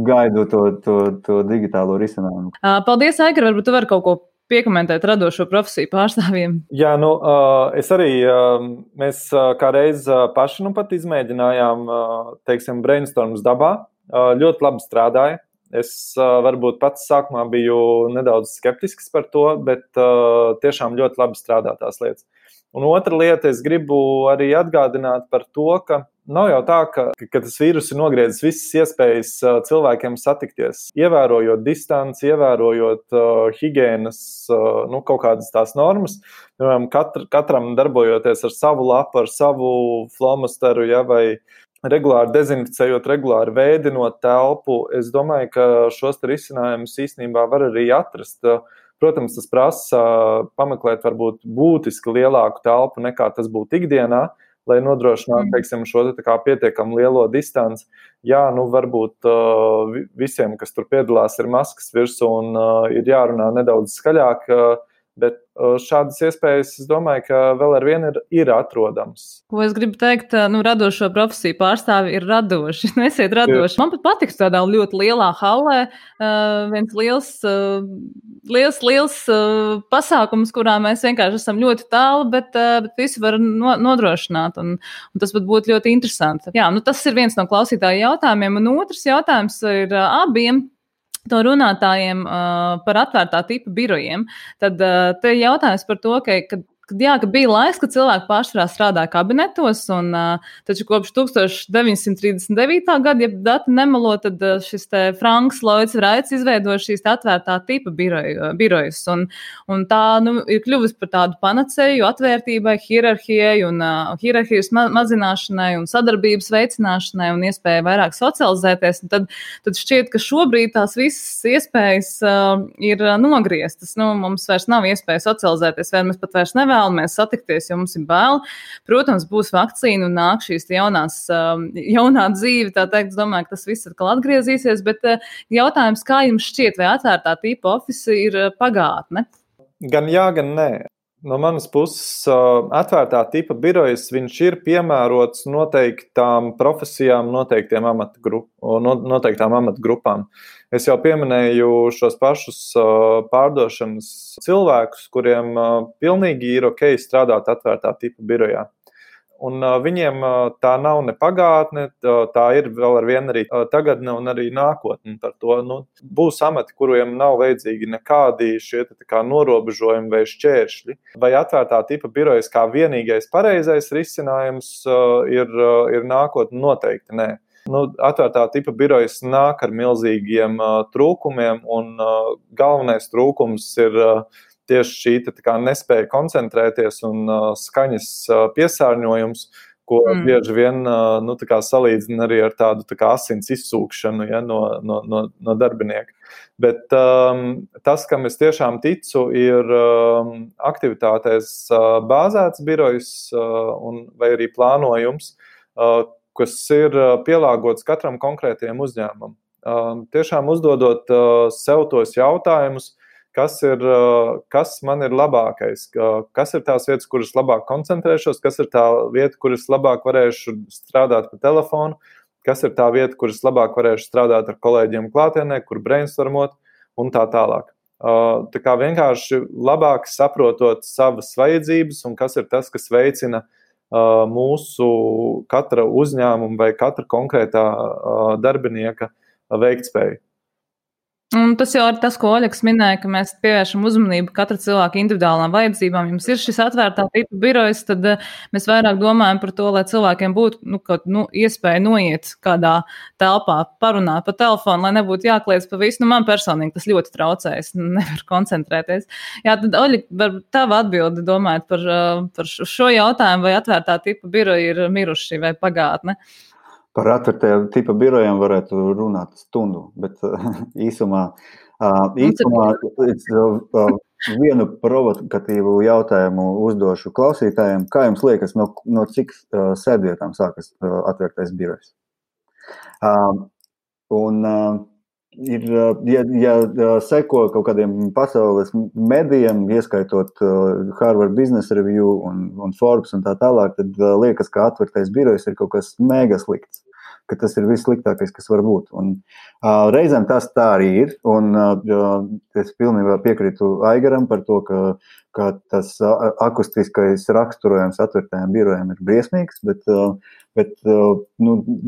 gaidu to digitālo risinājumu. Paldies, Aigar, varbūt tu vari kaut ko piekomentēt radošo profesiju pārstāvjiem. Jā, es arī, mēs kā reiz paši pat izmēģinājām, teiksim, brainstorms dabā, ļoti labi strādāja. Es varbūt pats sākumā biju nedaudz skeptisks par to, bet tiešām ļoti labi strādā tās lietas. Un otra lieta, es gribu arī atgādināt par to, ka nav jau tā, ka tas vīrus ir nogriezis visas iespējas cilvēkiem satikties, ievērojot distanci, ievērojot higienas, kaut kādas tās normas. Katram darbojoties ar savu lapu, ar savu flomasteru, vai regulāri dezinficējot, regulāri veidinot telpu. Es domāju, ka šos risinājumus īstenībā var arī atrast. Protams, tas prasa pameklēt varbūt būtiski lielāku telpu nekā tas būtu ikdienā, lai nodrošinātu, teiksim, šo pietiekami lielo distanci. Jā, varbūt visiem, kas tur piedalās, ir maskas virsū un ir jārunā nedaudz skaļāk, Bet šādas iespējas, es domāju, ka vēl ar vienu ir atrodams. Ko es gribu teikt, radošo profesiju pārstāvi ir radoši. Esiet radoši. Man pat patiks tādā ļoti lielā hallē viens liels pasākums, kurā mēs vienkārši esam ļoti tālu, bet visi var nodrošināt. Un tas pat būtu ļoti interesanti. Jā, tas ir viens no klausītāju jautājumiem. Un otrs jautājums ir abiem to runātājiem par atvērtā tipa birojiem. Tad te jautājums par to, ka bija laiks, kad cilvēki pārsvarā strādāja kabinetos, un taču kopš 1939. gada, ja dati nemelo, tad šis te Franks Lloyds Wrights izveidoja šīs atvērtā tipa birojus, un tā ir kļuvusi par tādu panacēju atvērtībai, hierarhijai un hierarhijas mazināšanai un sadarbības veicināšanai un iespēju vairāk socializēties. Un tad šķiet, ka šobrīd tās visas iespējas ir nogrieztas. Mums vairs nav iespēja socializēties, vai mēs pat vairs nevēlamies satikties, jo mums ir bail. Protams, būs vakcīna un nāk šīs jaunā dzīve, tā teikt, es domāju, ka tas viss atkal atgriezīsies, bet jautājums, kā jums šķiet, vai atvērtā tipa ofisi ir pagātne? Gan jā, gan nē. No manas puses, atvērtā tipa birojas, viņš ir piemērots noteiktām profesijām, noteiktām amatgrupām. Es jau pieminēju šos pašus pārdošanas cilvēkus, kuriem pilnīgi ir ok strādāt atvērtā tipa birojā. Un viņiem tā nav ne pagātne, tā ir vēl ar vienu arī tagadne un arī nākotne. Par to būs amati, kuriem nav vajadzīgi nekādi šie norobežojumi vai šķēršļi. Vai atvērtā tipa birojas kā vienīgais pareizais risinājums ir nākotne? Noteikti nē. Atvērtā tipa birojas nāk ar milzīgiem trūkumiem, un galvenais trūkums ir tieši šī nespēja koncentrēties un skaņas piesārņojums, ko bieži vien salīdzina arī ar tādu asins izsūkšanu no darbinieka. Bet tas, kam es tiešām ticu, ir aktivitātēs bāzēts birojs vai arī plānojums, kas ir pielāgots katram konkrētajam uzņēmumam. Tiešām uzdodot sev tos jautājumus, kas man ir labākais, kas ir tās vietas, kuras labāk koncentrēšos, kas ir tā vieta, kuras labāk varēšu strādāt pa telefonu, kas ir tā vieta, kuras labāk varēšu strādāt ar kolēģiem klātienē, kur brainstormot un tā tālāk. Tā kā vienkārši labāk saprotot savas vajadzības un kas ir tas, kas veicina mūsu katra uzņēmuma vai katra konkrētā darbinieka veiktspēju. Un tas jau ir tas, ko Oļegs minēja, ka mēs pievēršam uzmanību katra cilvēka individuālām vajadzībām. Jums ir šis atvērtā tipa birojs, tad mēs vairāk domājam par to, lai cilvēkiem būtu iespēja noiet kādā telpā, parunāt pa telefonu, lai nebūtu jākliedz pa visu. Man personīgi tas ļoti traucē, es nevaru koncentrēties. Jā, tad Oļeg, tava atbildi domājot par šo jautājumu, vai atvērtā tipa biroji ir miruši vai pagātne? Par atvērtajiem tipa birojiem varētu runāt stundu, bet īsumā vienu provokatīvu jautājumu uzdošu klausītājiem. Kā jums liekas, no cik sēdvietām sākas atvērtais birojs? Ja seko kaut kādiem pasaules medijiem, ieskaitot Harvard Business Review un Forbes un tā tālāk, tad liekas, ka atvērtais birojs ir kaut kas mega slikts, ka tas ir vissliktākais, kas var būt. Un reizēm tas tā arī ir, un es pilnībā piekrītu Aigaram par to, ka tas akustiskais raksturojums atvērtajiem birojiem ir briesmīgs, bet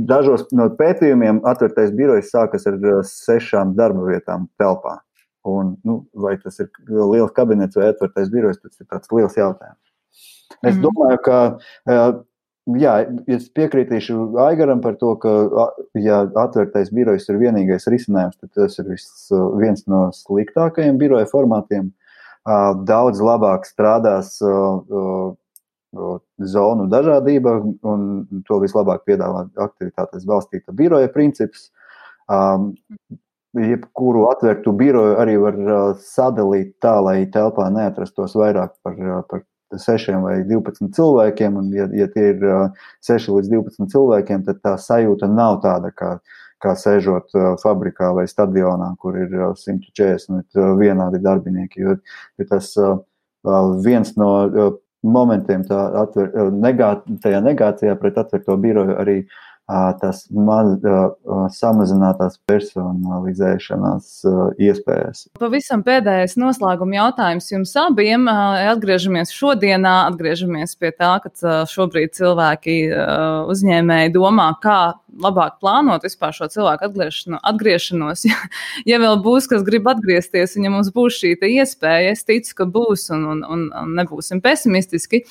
dažos no pētījumiem atvērtais birojs sākas ar 6 darba vietām telpā. Un, vai tas ir liels kabinets vai atvērtais birojs, tas ir tāds liels jautājums. Es domāju, ka es piekrītīšu Aigaram par to, ka ja atvērtais birojs ir vienīgais risinājums, tad tas ir viens no sliktākajiem biroja formātiem. Daudz labāk strādās zonu dažādība, un to vislabāk piedāvā aktivitātes balstīta biroja princips. Jebkuru atvērtu biroju arī var sadalīt tā, lai telpā neatrastos vairāk par 6 vai 12 cilvēkiem, un ja tie ir 6 līdz 12 cilvēkiem, tad tā sajūta nav tāda, kā sēžot fabrikā vai stadionā, kur ir 140 vienādi darbinieki, jo tas viens no momentiem tajā negācijā pret atvērto biroju arī tas samazinātās personalizēšanās iespējas. Pavisam pēdējais noslēguma jautājums jums abiem. Atgriežamies šodienā, atgriežamies pie tā, ka šobrīd cilvēki uzņēmēji domā, kā labāk plānot vispār šo cilvēku atgriešanos. Ja vēl būs, kas grib atgriezties, un ja mums būs šī iespēja, es ticu, ka būs un nebūsim pesimistiski.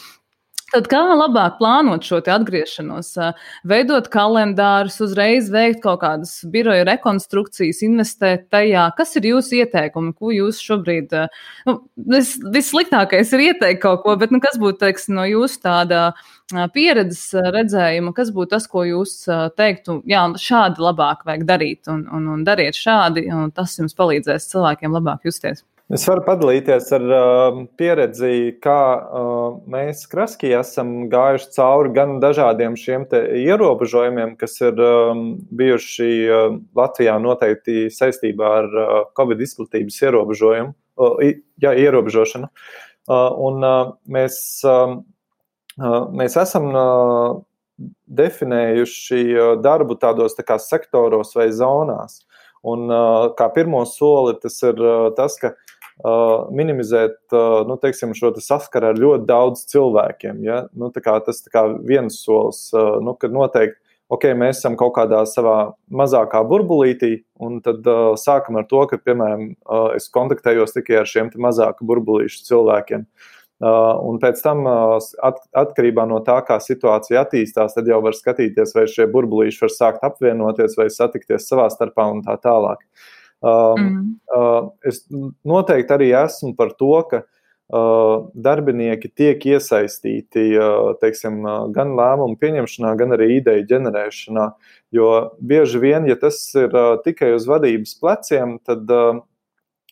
Tad kā labāk plānot šo atgriešanos, veidot kalendārus, uzreiz veikt kaut kādas biroja rekonstrukcijas, investēt tajā? Kas ir jūsu ieteikumi, ko jūs šobrīd, vissliktākais ir ieteikt kaut ko, bet kas būtu, teiksim, no jūsu tāda pieredzes redzējuma, kas būtu tas, ko jūs teiktu, jā, šādi labāk vajag darīt un dariet šādi, un tas jums palīdzēs cilvēkiem labāk justies? Es varu padalīties ar pieredzi, kā mēs Kraskī esam gājuši cauri gan dažādiem šiem te ierobežojumiem, kas ir bijuši Latvijā noteikti saistībā ar Covid izplatības ierobežošanu. Un mēs esam definējuši darbu tādos tā kā sektoros vai zonās. Un kā pirmo soli tas ir tas, ka minimizēt teiksim, šo saskaru ar ļoti daudz cilvēkiem. Ja? Tas viens solis, kad noteikti, mēs esam kaut kādā savā mazākā burbulītī, un tad sākam ar to, ka, piemēram, es kontaktējos tikai ar šiem mazāku burbulīšu cilvēkiem. Un pēc tam, atkarībā no tā, kā situācija attīstās, tad jau var skatīties, vai šie burbulīši var sākt apvienoties vai satikties savā starpā un tā tālāk. Es noteikti arī esmu par to, ka darbinieki tiek iesaistīti, teiksim, gan lēmumu pieņemšanā, gan arī ideju ģenerēšanā, jo bieži vien, ja tas ir tikai uz vadības pleciem, tad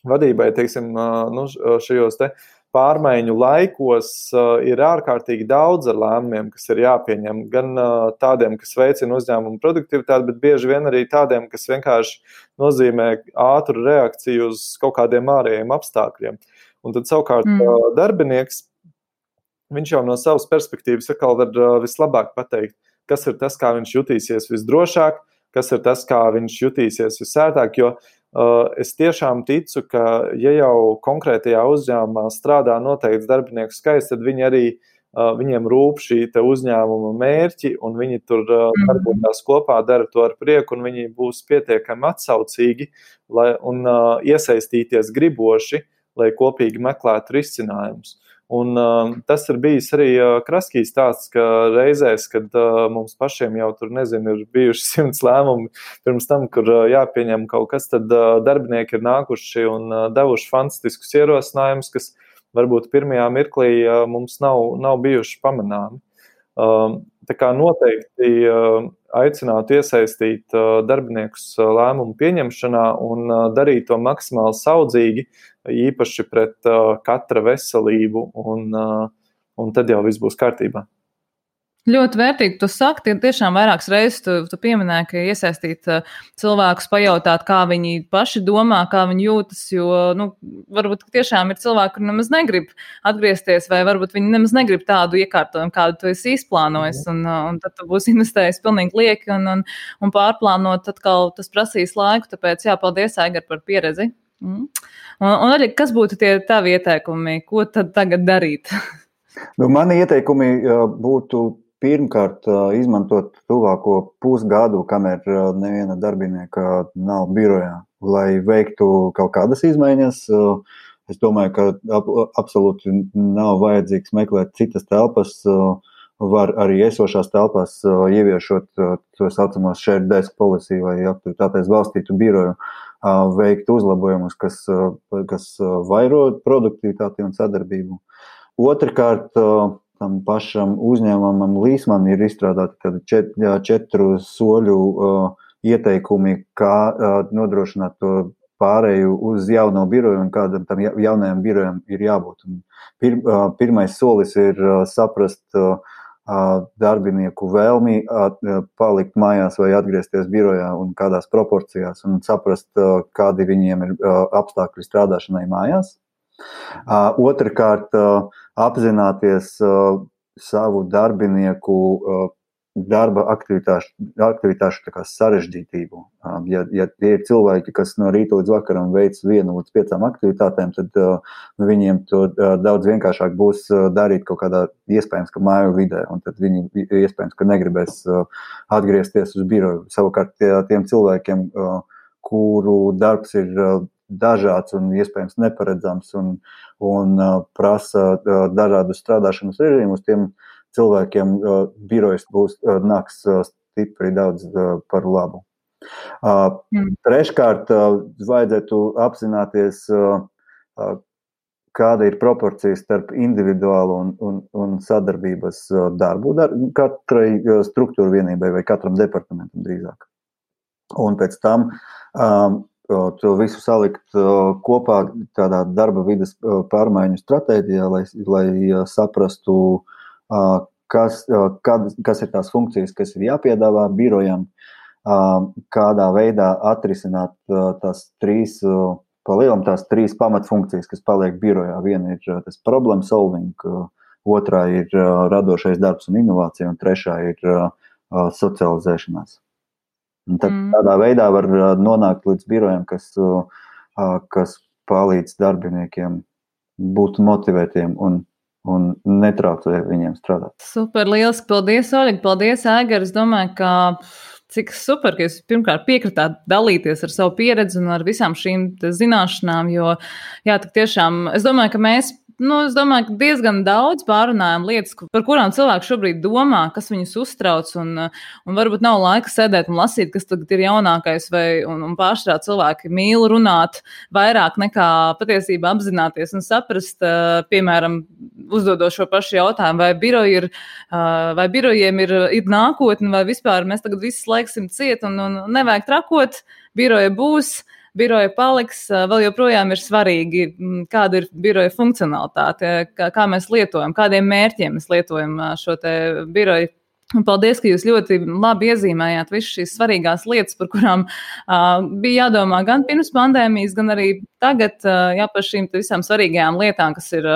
vadībai, teiksim, šajos te pārmaiņu laikos ir ārkārtīgi daudz ar lēmumiem, kas ir jāpieņem, gan tādiem, kas veicina uzņēmumu produktivitāti, bet bieži vien arī tādiem, kas vienkārši nozīmē ātru reakciju uz kaut kādiem ārējiem apstākļiem. Un tad savukārt darbinieks, viņš jau no savas perspektīvas atkal var vislabāk pateikt, kas ir tas, kā viņš jutīsies visdrošāk, kas ir tas, kā viņš jutīsies visērtāk, jo es tiešām ticu, ka ja jau konkrētajā uzņēmumā strādā noteikts darbinieku skaits, tad viņi arī, viņiem rūp šī te uzņēmuma mērķi, un viņi tur darbojās kopā, dara to ar prieku, un viņi būs pietiekami atsaucīgi un iesaistīties griboši, lai kopīgi meklētu risinājumus. Un tas ir bijis arī Kraskī stāsts, ka reizēs, kad mums pašiem jau tur, ir bijuši 100 lēmumi pirms tam, kur jāpieņem kaut kas, tad darbinieki ir nākuši un devuši fantastiskus ierosinājumus, kas varbūt pirmajā mirklī mums nav bijuši pamanāmi. Tā kā noteikti aicinātu iesaistīt darbiniekus lēmumu pieņemšanā un darīt to maksimāli saudzīgi, īpaši pret katra veselību, un tad jau viss būs kārtībā. Ļoti vērtīgi tu saki, tiešām vairākas reizes tu pieminēji, ka iesaistīt cilvēkus, pajautāt, kā viņi paši domā, kā viņi jūtas, jo, varbūt tiešām ir cilvēki, kur nemaz negrib atgriezties, vai varbūt viņi nemaz negrib tādu iekārtojumu, kādu tu esi izplānojis, un tad tu būsi investējis pilnīgi lieki, un pārplānot atkal tas prasīs laiku, tāpēc paldies, Aigar, par pieredzi. Un arī, kas būtu tie tavi ieteikumi, ko tad tagad darīt? Mani ieteikumi būtu pirmkārt izmantot tuvāko pusgadu, kamēr neviena darbinieka nav birojā, lai veiktu kaut kādas izmaiņas. Es domāju, ka absolūti nav vajadzīgs meklēt citas telpas, var arī esošās telpās ieviešot to saucamos shared desk policy vai aktivitātēs balstītu biroju, veikt uzlabojumus, kas vairo produktivitāti un sadarbību. Otrkārt, tam pašam uzņēmumam Līsman ir izstrādāti 4 soļu ieteikumi, kā nodrošināt to pārēju uz jauno biroju un kādam tam jaunajam birojam ir jābūt. Pirmais solis ir saprast darbinieku vēlmi palikt mājās vai atgriezties birojā un kādās proporcijās un saprast, kādi viņiem ir apstākļi strādāšanai mājās. Otrakārt, apzināties savu darbinieku darba aktivitāšu tā kā sarežģītību. Ja tie ir cilvēki, kas no rīta līdz vakaram veic 1 līdz 5 aktivitātēm, tad viņiem to daudz vienkāršāk būs darīt kaut kādā iespējams, ka māju vidē, un tad viņi iespējams, ka negribēs atgriezties uz biroju. Savukārt tiem cilvēkiem, kuru darbs ir dažāds un iespējams neparedzams un prasa dažādus strādāšanas režīmus, tiem cilvēkiem birojas nāks stipri daudz par labu. Treškārt, vajadzētu apzināties, kāda ir proporcija starp individuālu un sadarbības darbu katrai struktūra vienībai vai katram departamentam drīzāk. Un pēc tam to visu salikt kopā tādā darba vides pārmaiņu stratēģijā, lai saprastu, kas ir tās funkcijas, kas ir jāpiedāvā birojam, kādā veidā atrisināt tās 3 pamatfunkcijas, kas paliek birojā. Viena ir tas problem solving, otrā ir radošais darbs un inovācija, un trešā ir socializēšanās. Un tad tādā veidā var nonākt līdz birojam, kas palīdz darbiniekiem būt motivētiem un netraucē viņiem strādāt. Super, lieliski. Paldies, Oļega. Paldies, Aigar. Es domāju, ka cik super, ka jūs pirmkārt piekritāt dalīties ar savu pieredzi un ar visām šīm zināšanām, jo, jā, tik tiešām, es domāju, ka mēs diezgan daudz pārunājam lietas, par kurām cilvēki šobrīd domā, kas viņus uztrauc, un varbūt nav laika sēdēt un lasīt, kas tagad ir jaunākais, un pārstrā cilvēki mīl runāt vairāk nekā patiesībā apzināties un saprast, piemēram, uzdodot šo pašu jautājumu, vai birojiem ir nākotne, vai vispār mēs tagad visi laiksim ciet un nevajag trakot, biroja būs, biroja paliks, vēl joprojām ir svarīgi, kāda ir biroja funkcionalitāte, kā mēs lietojam, kādiem mērķiem mēs lietojam šo te biroju. Un paldies, ka jūs ļoti labi iezīmējāt visas šīs svarīgās lietas, par kurām bija jādomā gan pirms pandēmijas, gan arī tagad, par šīm visām svarīgajām lietām, kas ir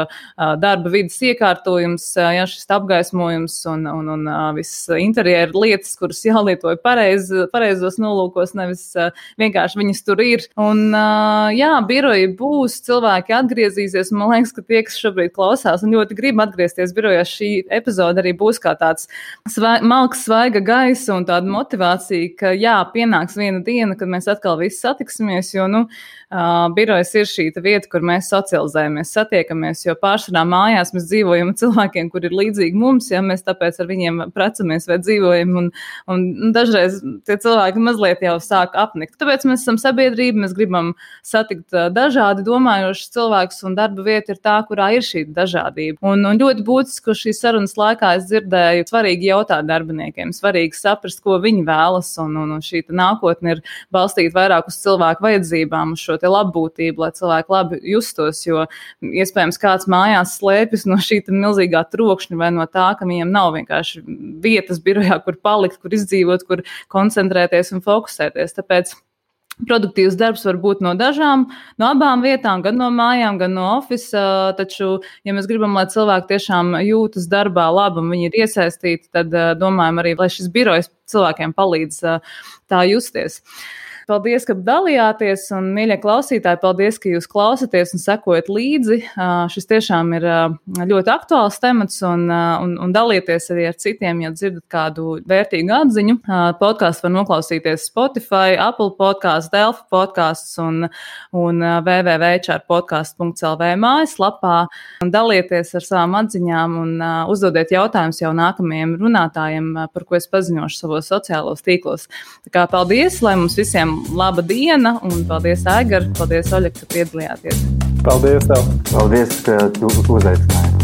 darba vidas iekārtojums, šis apgaismojums un viss interjera lietas, kuras jālietoja pareizos nolūkos, nevis vienkārši viņas tur ir. Un biroji būs, cilvēki atgriezīsies, un man liekas, ka tie, kas šobrīd klausās un ļoti grib atgriezties birojā, šī epizode arī būs kā tāds malks, svaiga gaisa un tāda motivācija, ka pienāks viena diena, kad mēs atkal visi satiksimies, jo, birojas ir šī vieta, kur mēs socializējamies, satiekamies, jo pārsvarā mājās mēs dzīvojam ar cilvēkiem, kur ir līdzīgi mums, mēs tāpēc ar viņiem precamies vai dzīvojam, un dažreiz tie cilvēki mazliet jau sāk apnikt. Tāpēc mēs esam sabiedrība, mēs gribam satikt dažādi domājošus cilvēkus, un darba vieta ir tā, kurā ir šī dažādība. Un ļoti būtiski, ka šīs sarunas laikā es dzirdēju svarīgi jautāt darbiniekiem, svarīgi saprast, ko viņi vēlas, un šī nākotne ir balstīta vairāk uz cilvēku vajadzībām, uz šo te labbūtību, lai cilvēki labi justos, jo iespējams kāds mājās slēpjas no šī milzīgā trokšņa vai no tā, ka viņiem nav vienkārši vietas birojā, kur palikt, kur izdzīvot, kur koncentrēties un fokusēties. Tāpēc produktīvs darbs var būt no abām vietām, gan no mājām, gan no ofisa, taču, ja mēs gribam, lai cilvēki tiešām jūtas darbā labi un viņi ir iesaistīti, tad domājam arī, lai šis birojs cilvēkiem palīdz tā justies. Paldies, ka dalījāties, un, mīļie klausītāji, paldies, ka jūs klausaties un sekojat līdzi. Šis tiešām ir ļoti aktuāls temats, un dalieties arī ar citiem, ja dzirdat kādu vērtīgu atziņu. Podcasts var noklausīties Spotify, Apple Podcasts, Delfi Podcasts un www.hrpodcast.lv mājaslapā. Dalieties ar savām atziņām un uzdodiet jautājumus jau nākamajiem runātājiem, par ko es paziņošu savos sociālos tīklos. Tā kā paldies, lai mums visiem laba diena, un paldies, Aigar, paldies, Oļeg, ka piedalījāties. Paldies tev. Paldies, ka tu uzaicināji.